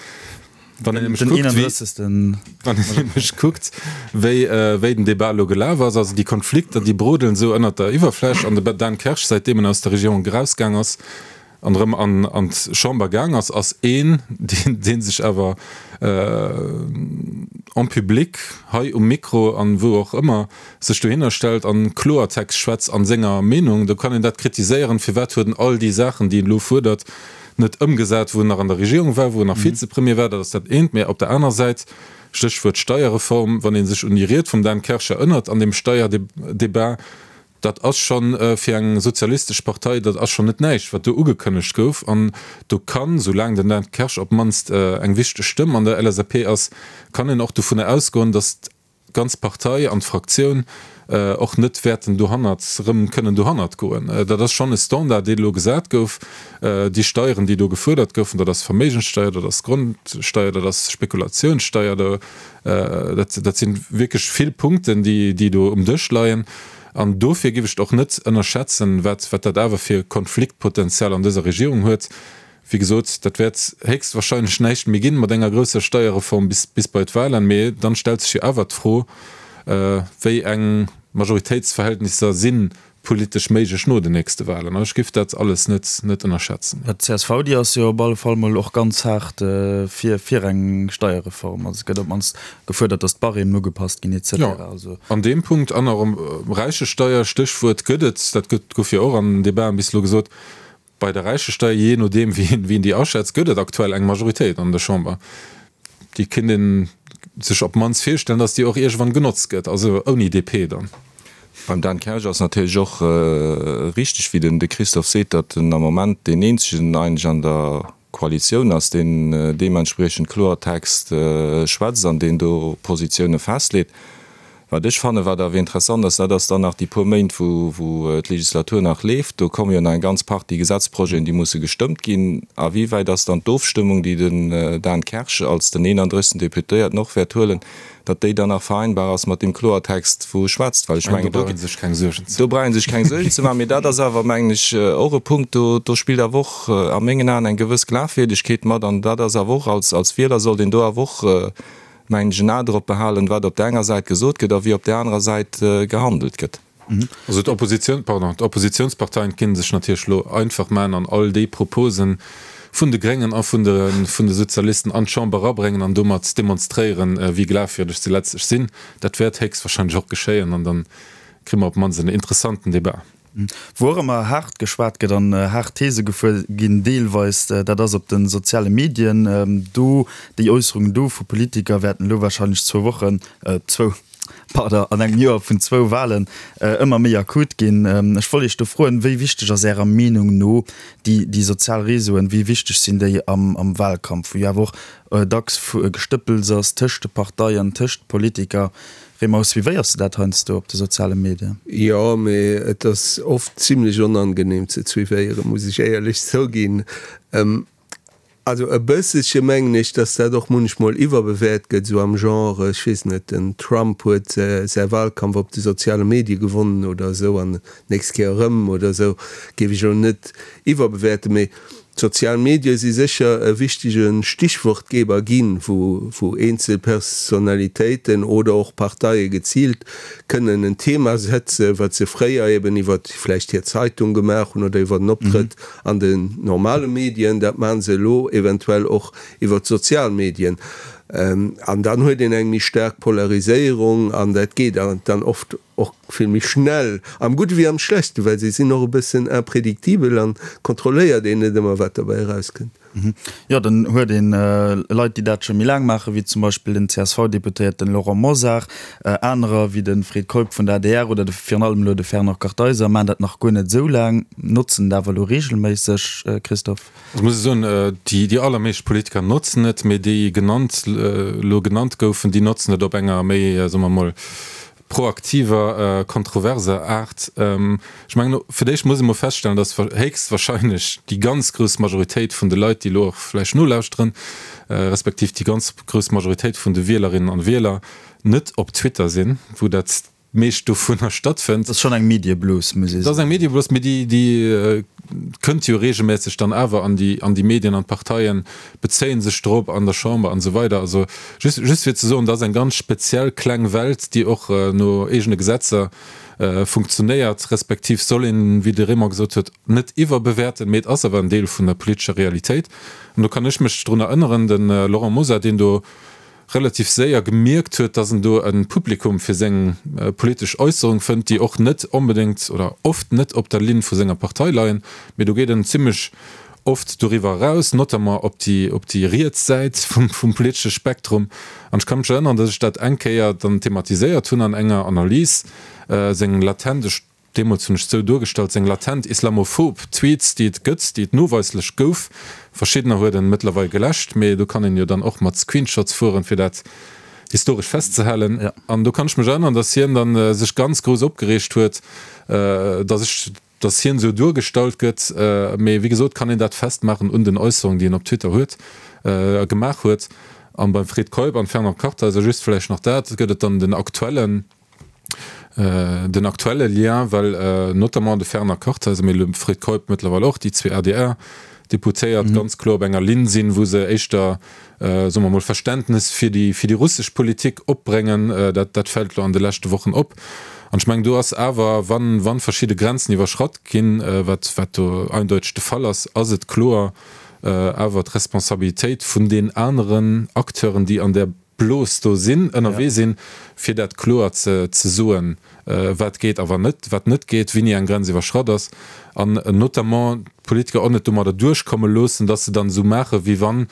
Speaker 5: Wann een nämlech kuckt, wéi, wann een nämlech kuckt, wéi, wéi den Debat elo gelaf ass, also déi Konflikter, déi brodelen esou ënnert der Iwwerfläch an de Dan Kersch, säitdeem en aus der Regierung erausgaang ass an erëm an, an d'Chamber gaang ass, ass een, deen, dee sech awer en public, hei um Mikro an wou och ëmmer, sech dohinner stellt an Kloertext schwätzt an senger Meenung. Do kann een dat kritiséieren, firwat huet en all déi Saachen, déi en elo fuerdert, net ëmgesat, wou en nach an der Regierung war, wou en nach Vizepremier war, dat ass dat eent. Mä op der aner Säit, Stéchwuert Steierreform, wann ee sech un déi Ried vum Dan Kersch erënnert an deem Steierdebat, dat ass scho fir eng sozialistesch Partei, dat ass schonn net näischt, wat do ugekënnegt gouf. An do kann, soulaang den Dan Kersch op d'mannst eng wichteg Stëmm an der LSAP ass, kann een och dovunner ausgoen, datt d'ganz Partei an d'Fraktioun och net wäerten dohannert erëm kënnen dohannert goen. Dat ass schonn e Standard, deen elo gesat gouf. Déi Steieren, déi do gefuerdert goufen, dat ass Verméigenssteier, dat ass Grondsteier, dat ass Spekulationssteier, dat dat si wierklech vill Punkten, déi déi do um Dësch leien. An dofir géif ech et och net ënnerschätzen, wat wat dat awer fir Konfliktpotenzial an dëser Regierung huet. Wéi gesot, dat wäert héchstwahrscheinlech näischt méi ginn mat enger grousser Steierreform bis bis bei d'Wahlen. Mee dann stellt sech jo awer d'Fro, wéi eng Majoritéitsverhältnisser si politesch méiglech no den nächste Wahlen. Ech géif dat alles net net ënnerschätzen.
Speaker 3: D'CSV, déi ass jo op alle Fall mol och ganz haart fir fir eng Steierreform. Also et gëtt op d'mannst gefuerdert, datt d'Barèmen ugepasst ginn et cetera.
Speaker 5: Jo, an deem Punkt an och Räichesteier, Stéchwuert gëtt et, dat gëtt gouf jo och an Debaten bis elo gesot, Bei der Räichesteier, jee nodeem wéi een déi aschätzt, gëtt et aktuell eng Majoritéit an der Chamber. Déi kéint ee sech op d'mannst virstellen, datt déi och iergendwann genotzt gëtt, also ouni DP dann.
Speaker 4: Beim Dan Kersch ass natierlech och richteg, wéi den de Christophe seet, datt en am Moment deen eenzegen eigentlech an der Koalitioun ass, deen deementspriechend Kloertext schwätzt an deen do Positioune festleet. Wat ech fannen, wat awer interessant ass, dat ass dann nach déi puer Méint, wou wou d'Legislatur nach leeft. Do komme jo nach eng ganz Partie Gesetzprojeten, déi musse gestëmmt ginn. A wéi wäit ass dann d'Ofstëmmung, déi den Dan Kersch als den 31. Deputéierten och wäert huelen, datt déi dann nach vereinbar ass mat deem Kloertext, wou e schwätzt? Well ech mengen, do brauch ee sech keng Suergen ze do brauch ee sech keng Suergen ze maachen. Mee dat ass awer, mengen ech, och e Punkt, do do spillt awer och a mengen Aen eng gewëss Glafwierdegkeet mat. An dat ass awer och, als als Wieler sollt een do awer och, mengen ech, en A drop behalen, wat op där enger Säit gesot gëtt a wéi op där anerer Säit gehandelt gëtt.
Speaker 5: Also d'Oppositioun, pardon, d'Oppositionsparteien kinne sech natierlech elo einfach maachen an all déi Propose vun de Gréngen a vun de vun de Sozialisten an d'Chamber erabréngen an domat demonstréieren, wéi glafwierdeg se letztlech sinn. Dat wäert héchstwahrscheinlech och geschéien an dann kréie mer op d'mannst en interessanten Débat.
Speaker 3: Wou och ëmmer haart geschwat gëtt an haart These gefuer ginn deelweis, dat ass op de soziale Medien. Do, déi Äusserungen do vu Politiker wäerten elo warscheinlech zwou Wochen, zwou, pardon, an engem Joer vun zwou Wahlen ëmmer méi akut ginn. Ech wollt Iech do froen, wéi wichteg ass Ärer Meenung no déi, déi sozial Réseauen, wéi wichteg sinn déi am, am Wahlkampf, wou jo awer och dacks Gestëppels ass tëscht de Parteien, tëscht Politiker? Raymond, suivéiers de dat heiansdo op de soziale Medien?
Speaker 6: Jo, mee et ass oft zimlech onangenehm ze suivéieren, muss ech éierlech zouginn. Also e bësselche mengen ech, dass dat och munchmol iwwerbewäert gëtt, esou am Genre, ech weess net, den Trump huet säi Wahlkampf op de soziale Medie gewonnen oder esou an d'nächst Kéier erëm oder esou, géif ech elo net iwwerbewäerten. Mee D'sozial Medie si sécher e wichtege Stichwortgeber ginn, wou eenzel Personalitéiten oder och Parteie geziilt kënnen en Thema setzen, wat se fréier eben iwwer vläicht hir Zeitung gemaach hunn oder iwwer en Optrëtt an den normale Medien. Dat maache se elo eventuell och iwwer d'sozial Medien. An dann huet een eng méi staark Polariséierung an dat geet dann oft Och vill méi schnell, am Gudde wéi am Schlechten, well se sinn och e bëssen imprédictibel an kontrolléiert een net ëmmer, wat derbäi erauskënnt.
Speaker 3: Jo, dann huet een Leit, déi dat scho méi laang maachen, wéi zum Beispill den CSV-Deputéierten Laurent Mosar. Anerer, wéi de Fred Keup vun der adr oder de virun allem elo de Fernand Kartheiser, maachen dat nach guer net esou laang, notzen et awer elo reegelméisseg. Christophe?
Speaker 5: Ech muss soen, déi allermeescht Politiker notzen et, mee déi genannt, elo genannt goufen, déi notzen et op enger méi, soe mer emol, proaktiver, kontroverser Aart. Ech mengen, fir d'éischt muss ee mol feststellen, dass héchstwahrscheinlech déi ganz grouss Majoritéit vun de Leit, déi elo och vläicht nolauschteren, respektiv déi ganz grouss Majoritéit vun de Wielerinnen an Wieler net op Twitter sinn, wou dat meescht dovunner stattfënnt.
Speaker 3: Dat ass schonn eng Medieblos, muss ee
Speaker 5: soen. Dat ass eng Medieblos, mee déi, déi kënnt jo regelmässeg dann awer an déi, an déi Medien an d'Parteien bezéie sech drop an der Chamber an esou weider. Also just, just fir ze soen, dat ass eng ganz speziell kleng Welt, déi och no eegene Gesetzer funktionéiert, respektiv soll een, wéi de Raymond gesot huet, net iwwerbewäerten, mee et ass awer en Deel vun der politescher Realitéit. An do kann ech mech drun erënneren, de Laurent Mosar, deen do relativ séier gemierkt huet, dass en do e Publikum fir seng politesch Äusserung fënnt, déi och net onbedéngt oder oft net op der Linn vu senger Partei leien, mee do geet en zimlech oft doriwwer eraus, notamment op déi op déi riets Säit vum vum politesche Spektrum. An ech ka mech erënneren, dass ech dat eng Kéier dann thematiséiert hunn an enger Analys, seng latent, ech Deemools hunn ech et sou duergestallt, seng latent islamophob Tweets, déi et gëtt, déi et noweislech gouf, verschiddener huet en mëttlerweil geläscht, mee do kann een jo dann och mat Screenshots fueren, fir dat historesch festzehalen. An do kann ech mech erënneren, datt hien dann sech ganz grouss opgereegt huet, datt ech, datt hien esou duergestallt gëtt. Mee wéi gesot kann een dat festmaachen un den Äusserungen, déi en op Twitter huet, gemaach huet. An beim Fred Keup an Fernand Kartheiser, just vläicht nach dat, gëtt et dann den aktuellen, Den aktuelle Lien, well notamment de Fernand Kartheiser, mee de Fred Keup mëttlerweil och, déi zwee ADR-Deputéiert, ganz kloer op enger Linn sinn, wou se éischter, soe mer mol, Verständnes fir déi, fir déi russesch Politik opbréngen. Dat, dat fält elo an de leschte Wochen op. An ech mengen, do ass awer, wann, wann verschidde Grenzen iwwerschratt ginn, wat, wat do eindeuteg de Fall ass, ass et kloer awer d'Responsabilitéit vun den aneren Acteuren, déi an där Blos do sinn, ënnerwee sinn, fir dat kloer ze soen, wat geet a wat net, wat net geet, wéini eng Grenz iwwerschratt ass, an notamment d'Politiker och net domadder duerchkomme loossen, dass se dann esou maachen, wéi wann,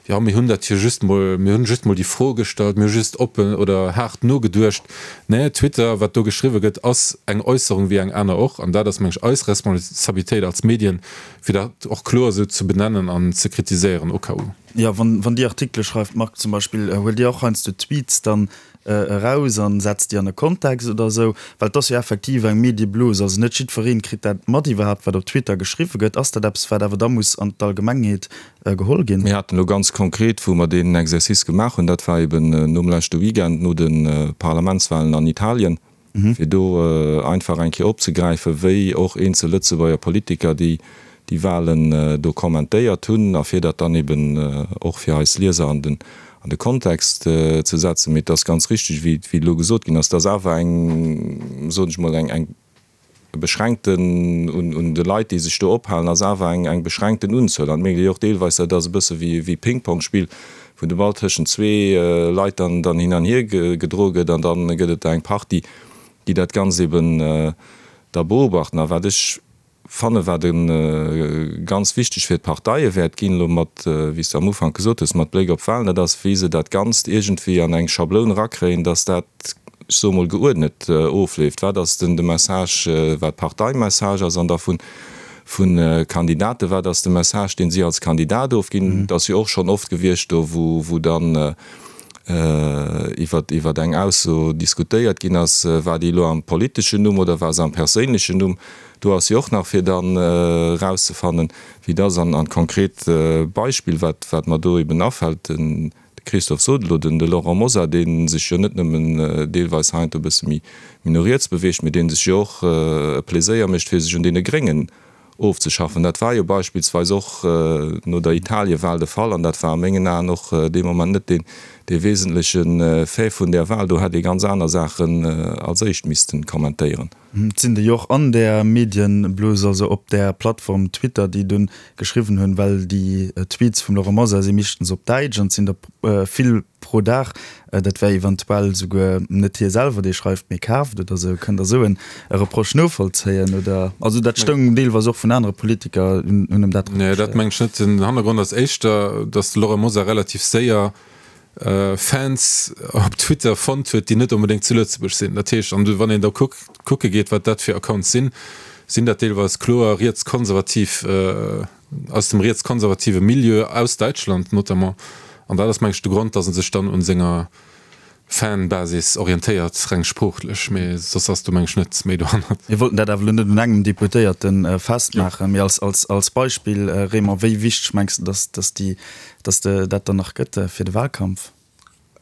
Speaker 5: jo, mir hunn dat jo just mol, mir hunn just mol déi Fro gestallt, mir hu just oppen oder haart nogeduecht. Nee, Twitter, wat do geschriwwe gëtt, ass eng Äusserung wéi eng aner och, an dat ass, meng ech, eis Responsabilitéit als Medien, fir dat och kloer esou ze benennen an ze kritiséieren, au cas où.
Speaker 3: Jo, wann Dir Artikele schreift, Marc, zum Beispill, huelt Dir och heiansdo Tweets dann eraus an setzt déi an e Kontext oder esou? Well et ass jo effektiv eng Medieblose, also net jiddweree kritt dat mat iwwerhaapt, wat op Twitter geschriwwe gëtt. Ass dat eppes, wat awer da muss an d'Allgemengheet geholl ginn?
Speaker 4: Mir haten elo ganz konkret, wou mer deen Exercice gemaach hunn, dat war eben nom leschte Weekend, no de Parlamentswahlen an Italien, fir do einfach eng Kéier opzegräifen, wéi och eenzel Lëtzebuerger Politiker déi déi Wahlen do kommentéiert hunn a fir dat dann eben och fir eis Lieser an den an de Kontext ze setzen. Mee et ass ganz richtig, wéi wéi elo gesot ginn ass, et ass awer eng, soen ech mol, eng eng beschränkten un un de Leit, déi sech do ophalen, ass awer eng eng beschränkten Unzuel. An et mierkt ee jo och deelweis, dat ass e bësse wéi wéi Ping-Pong-Spill, wou de Ball tëschent zwee Leit dann dann hin an hier gedroe gëtt an dann gëtt et der eng Partie, déi dat Ganzt eben da beobachten. A wat ech fanne wat e ganz wichteg fir d'Parteie wäert ginn, elo mat, wéi s de am Ufank gesot hues, mat Bléck op d'Wahlen, dat ass wéi se dat Ganzt iergendwéi an eng Schabloun erakréien, dass dat, ech soe mol, geuerdnet ofleeft. Wat ass den de Message, wat Parteimessage ass an da vun vu Kandidaten, wat ass de Message, deen si als Kandidat ofginn? Et ass jo och schonn oft gewiescht do, wou dann iwwer iwwer eng Ausso diskutéiert ginn ass, war déi elo am politeschen Numm oder war se am perséinlechen Numm? Do ass jo och nach fir dann erauszefannen, wéi et ass. An an d'konkret Beispill, wat wat mer do eben afält, den De Christophe sot elo, den de Laurent Mosar, dee sech jo net nëmmen deelweis heiansdo e bësse méi no riets beweegt, mee dee sech jo och e Pleséier mécht, fir sech un deene Gréngen ofzeschaffen. Dat war jo beispillsweis och no der Italiewal de Fall an dat war a mengen Aen och dee Moment net deen dee wesentleche Fait vun där Wal. Do hätt ee ganz aner Saachen als éischt misste kommentéieren.
Speaker 3: Et sinn déi och an där Medienblos, also op där Plattform Twitter, déi dunn geschriwwen hunn, well déi Tweets vum Laurent Mosar si meeschtens op Däitsch an et sinn der vill pro Dag. Dat wär eventuell souguer net hie selwer, dee schreift, mee kaaft oder esou. Kënnt Der esou e Reproche novollzéien oder? Also dat stoung deelweis och vun anere Politiker, hunn em dat
Speaker 5: reprochéiert. Nee, dat mengen ech net. Den Hannergrond ass éischter, datt de Laurent Mosar relativ séier Fans op Twitter fonnt huet, déi net onbedéngt zu Lëtzebuerg sinn. Dat heescht, an wann een da kucke geet, wat dat fir Accounts sinn, sinn dat deelweis kloer rietskonservativ, aus dem rietskonservative Milieu, aus Däitschland notamment. An dat ass, meng ech, de Grond, datt e sech dann un senger. Fanbasis orientéiert, reng sproochlech, mee soss ass do meng ech net méi dohannert.
Speaker 3: Mir wollten dat awer elo net un engem Deputéierte festmaachen, mee als Beispill, Raymond, wéi wichteg mengs de, dass déi, dass de dat dann nach gëtt fir de Wahlkampf?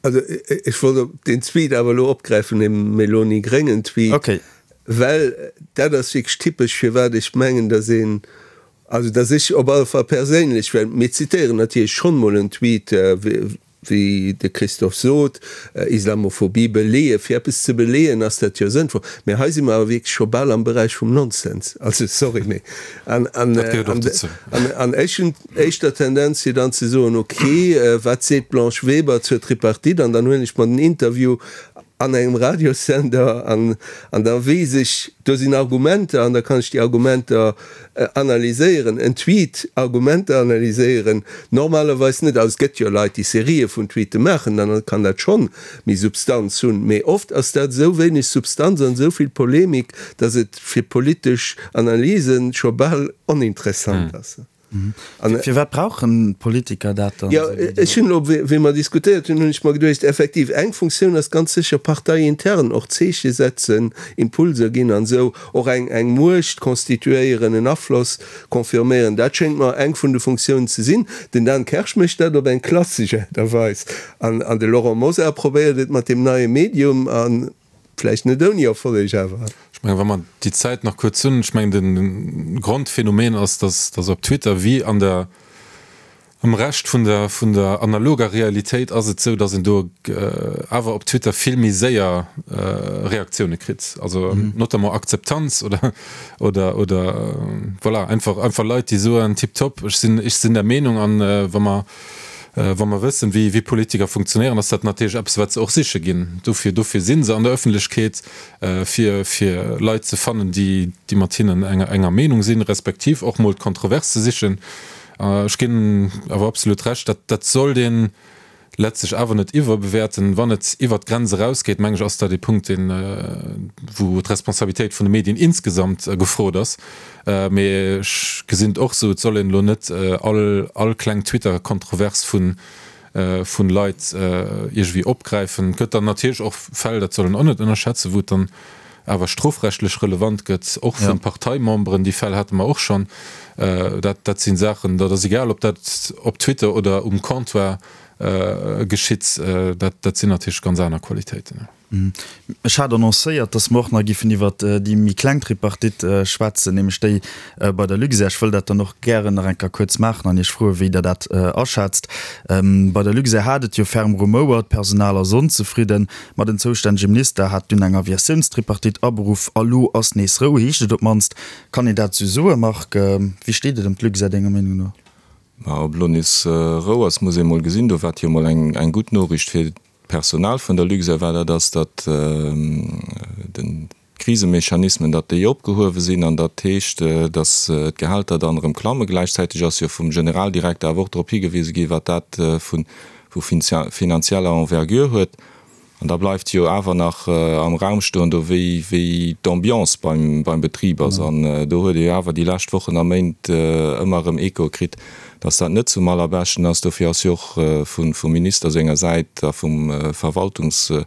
Speaker 6: Also ech wollt op deen Tweet awer elo opgräifen, dee Meloni-Gréngen-Tweet, well dat ass wierklech typesch firwat ech mengen, dass een, also dass ech op alle Fall perséinlech, well mir zitéieren natierlech schonn mol en Tweet, wéi de Christophe sot, Islamophobie beleeën, fir eppes ze beleeën ass dat jo sënnvoll, mä hei si mer awer wierklech scho bal am Beräich vum Nonsens, also sorry, mee an, an,
Speaker 5: Dat gehéiert och dozou.
Speaker 6: an, an ech hunn éischter d'Tendenz fir dann ze soen, okay, wat seet d'Blanche Weber zur Tripartite, an dann huelen ech mer den Interview an engem Radiossender an, an da weess ech, do sinn Argumenter an da kann ech déi Argumenter Analyséieren, en Tweet, Argumenter analyséieren, normalerweis net. Also et gëtt jo Leit, déi Serië vun Tweete maachen, dann kann dat schonn méi Substanz hunn. Mee oft ass dat esou wéineg Substanz an esou vill Polemik, datt et fir politesch Analyse scho bal oninteressant ass.
Speaker 3: Firwat brauchen d'Politiker dat
Speaker 6: dann? Jo, ech hunn elo, wéi mer diskutéiert hunn, hunn ech mer geduecht, effektiv, eng Funktioun ass ganz sécher parteiintern och Zeeche setzen, Impulser ginn an esou och eng eng Muecht constituéieren, en Afloss confirméieren. Dat schéngt mer eng vun de Funktiounen ze sinn. Den Dan Kersch mécht dat op eng klassesch Aart a Weis an an de Laurent Mosar probéiert et mat deem neie Medium a vläicht net ouni Erfolleg awer.
Speaker 5: Ech mengen, wa mer déi Zäit nach kuerz hunn, ech mengen, de Grondphänomen ass, dass dass op Twitter wéi an der Am Rescht vun der vun der analoger Realitéit ass et sou, datt een do awer op Twitter vill méi séier Reaktioune kritt, also notamment Akzeptanz oder oder oder voilà einfach einfach Leit déi soen tiptop, ech sinn ech sinn der Meenung an wa mer wa mer wëssen wéi wéi Politiker funktionéieren, ass dat natierlech eppes wat se och siche ginn. Dofir dofir si se an der Ëffentlechkeet fir fir Leit ze fannen déi déi mat hinnen enger enger Meenung sinn, respektiv och mol d'Kontrovers ze sichen. Ech ginn awer absolut Recht, dat dat sollt ee letztlech awer net iwwerbewäerten. Wann et iwwert d'Grenz erausgeet, meng ech, ass dat ee Punkt, deen, wou d'Responsabilitéit vun de Medien insgesamt gefrot ass. Mee ech gesinn et och esou, et soll een elo net all all kleng Twitter-Kontrovers vu vun Leit iergendwéi opgräifen. Et gëtt dann natierlech och Fäll, dat soll een och net ënnerschätzen, wou et dann awer strofrechtlech relevant gëtt, och vu Parteimemberen. Déi Fäll hate mer och schonn. Dat, dat si Saachen, dat ass egal, ob dat op Twitter oder um Comptoir geschitt, dat, dat sinn natierlech ganz aner Qualitéiten.
Speaker 3: Ech hat annoncéiert, dass mer och nach giffen iwwert déi méi kleng Tripartite schwätzen, nämlech déi bei der Luxair. Ech wëll dat dann och gären nach eng Kéier kuerz maachen an Iech froen, wéi Der dat aschätzt. Bei der Luxair hat et jo ferm rumouert, d'Personal ass onzefridden, ma den zoustännege Minister hat dunn eng Aviatiounstripartite aberuff a lo ass nees Rou, heescht et op d'mannst. Kann een dat esou soen, Marc? Wéi steet et ëm d'Luxair denger Meenung no?
Speaker 4: Ma ob elo nees Rou ass, muss ee mol gesinn. Do war et jo mol eng gutt Noriicht fir D'Personal vun der Luxair war dat ass, datt den d'Krisemechanismen, datt déi opgehuewe sinn an dat heescht, datt d'Gehälter dann erëm klammen. Gläichzäiteg ass jo vum Generaldirekter awer och drop higewise gi wat dat vu vu finanzieller Envergure huet. An da bleift jo awer nach am Raum stoen do wéi wéi d'Ambiance beim beim Betrib ass. An do huet ee jo awer déi lescht Wochen a Méint ëmmer erëm Echoe kritt, Dass dat net zum allerbeschten ass, dofir ass jo och vum Minister senger Säit a vum Verwaltungsrot,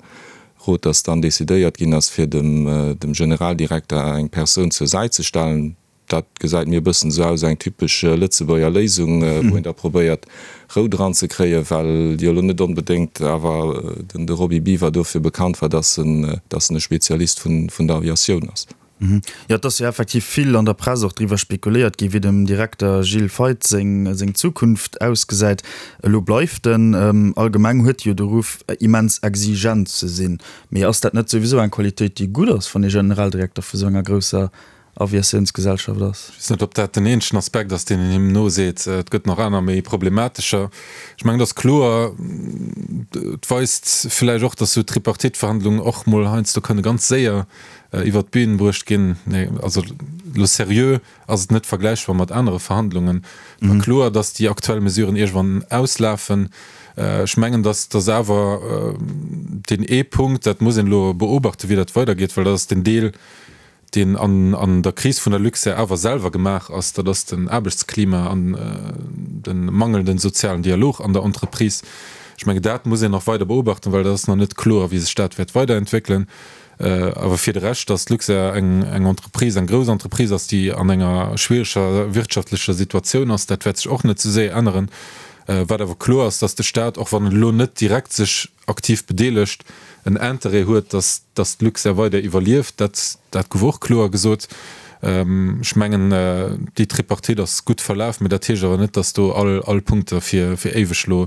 Speaker 4: dass dann decidéiert ginn ass, fir dem Generaldirekter eng Persoun zur Säit ze stellen. Dat gesäit mir e bëssen esou aus, eng typesch Lëtzebuerger Léisung, wou een da probéiert, Rou dran ze kréien, well jo elo net onbedéngt awer de Roby Biwer dofir bekannt war, dass en e Spezialist vun der Aviatioun ass.
Speaker 3: Jo, et ass jo effektiv vill an der Press och driwwer spekuléiert gi wéi dem Direkter Gilles Feith seng seng Zukunft ausgesäit. Elo bleift en. Allgemeng huet e jo de Ruff immens exigent ze sinn. Mee ass dat net souwisou eng Qualitéit déi gutt ass, wann ee Generaldirekter vu sou enger grousser Aviatiounsgesellschaft ass?
Speaker 5: Ech weess net, ob dat den eenzegen Aspekt ass, deen een him noseet. Et gëtt nach aner méi problematescher. Ech mengen, et ass kloer, et weist villäicht och, datt esou Tripartite-Verhandlungen och mol heiansdo kënne ganz séier iwwert d'Bühn bruecht ginn. Nee, also elo seriö ass et net vergläichbar mat anere Verhandlungen. Et war kloer, datt déi aktuell Mesuren iergendwann auslafen. Ech mengen, datt datt awer deen ee Punkt, dat muss een elo beobachten, wéi dat weidergeet, well dat ass den Deel, deen an an der Kris vun der Luxair awer selwer gemaach ass, dat ass den Aarbechtsklima an de mangelnden sozialen Dialog an der Entreprise. Ech mengen, dat muss een nach weider beobachten, well dat ass nach net kloer, wéi sech dat wäert weiderentwéckelen. Awer fir de Rescht, datt d'Luxair eng Entreprise, eng grouss Entreprise ass, déi an enger schwiereger wirtschaftlecher Situatioun ass, dat wäert sech och net sou séier änneren. Wat awer kloer ass, datt de Staat, och wann en elo net direkt sech aktiv bedeelegt, en Interêt huet, datt datt d'Luxair weider iwwerlieft. Dat dat gouf och kloer gesot. Ech mengen, déi Tripartite ass gutt verlaf, mä dat heescht awer net, datt do all all Punkte fir fir éiweg elo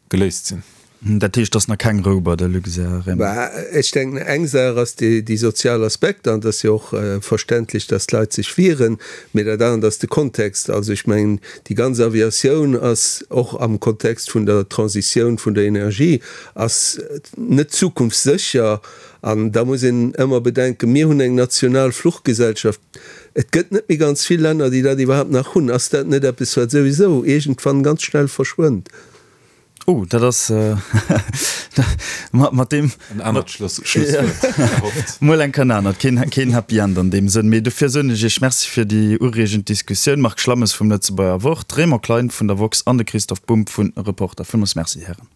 Speaker 5: geléist sinn.
Speaker 3: Dat heescht, et ass nach keng Rou bei der Luxair, Raymond?
Speaker 6: Bah, ech denken, eng Saach ass déi sozial Aspekter, an et ass jo och verständlech, datt d'Leit sech wieren, mee dat anert ass de Kontext. Also ech mengen, déi ganz Aviatioun ass och am Kontext vun der Transitioun vun der Energie ass net zukunftssécher. An da muss een ëmmer bedenken, mir hunn eng national Fluchgesellschaft. Et gëtt net méi ganz vill Länner, déi dat iwwerhaapt nach hunn. Ass dat net eppes, wat souwisou iergendwann ganz schnell verschwënnt?
Speaker 3: Oh, dat ass mat deem.
Speaker 5: En anert Schlusswuert.
Speaker 3: Mol eng Kéier en anert. Keen, keen Happy End an deem Sënn. Mee dofir soen ech Iech Merci fir déi ureegend Diskussioun. Marc Schlammes vum Lëtzebuerger Wort, Raymond Klein vun der woxx an de Christoph Bumb vu Reporter. Villmools Merci, Hären.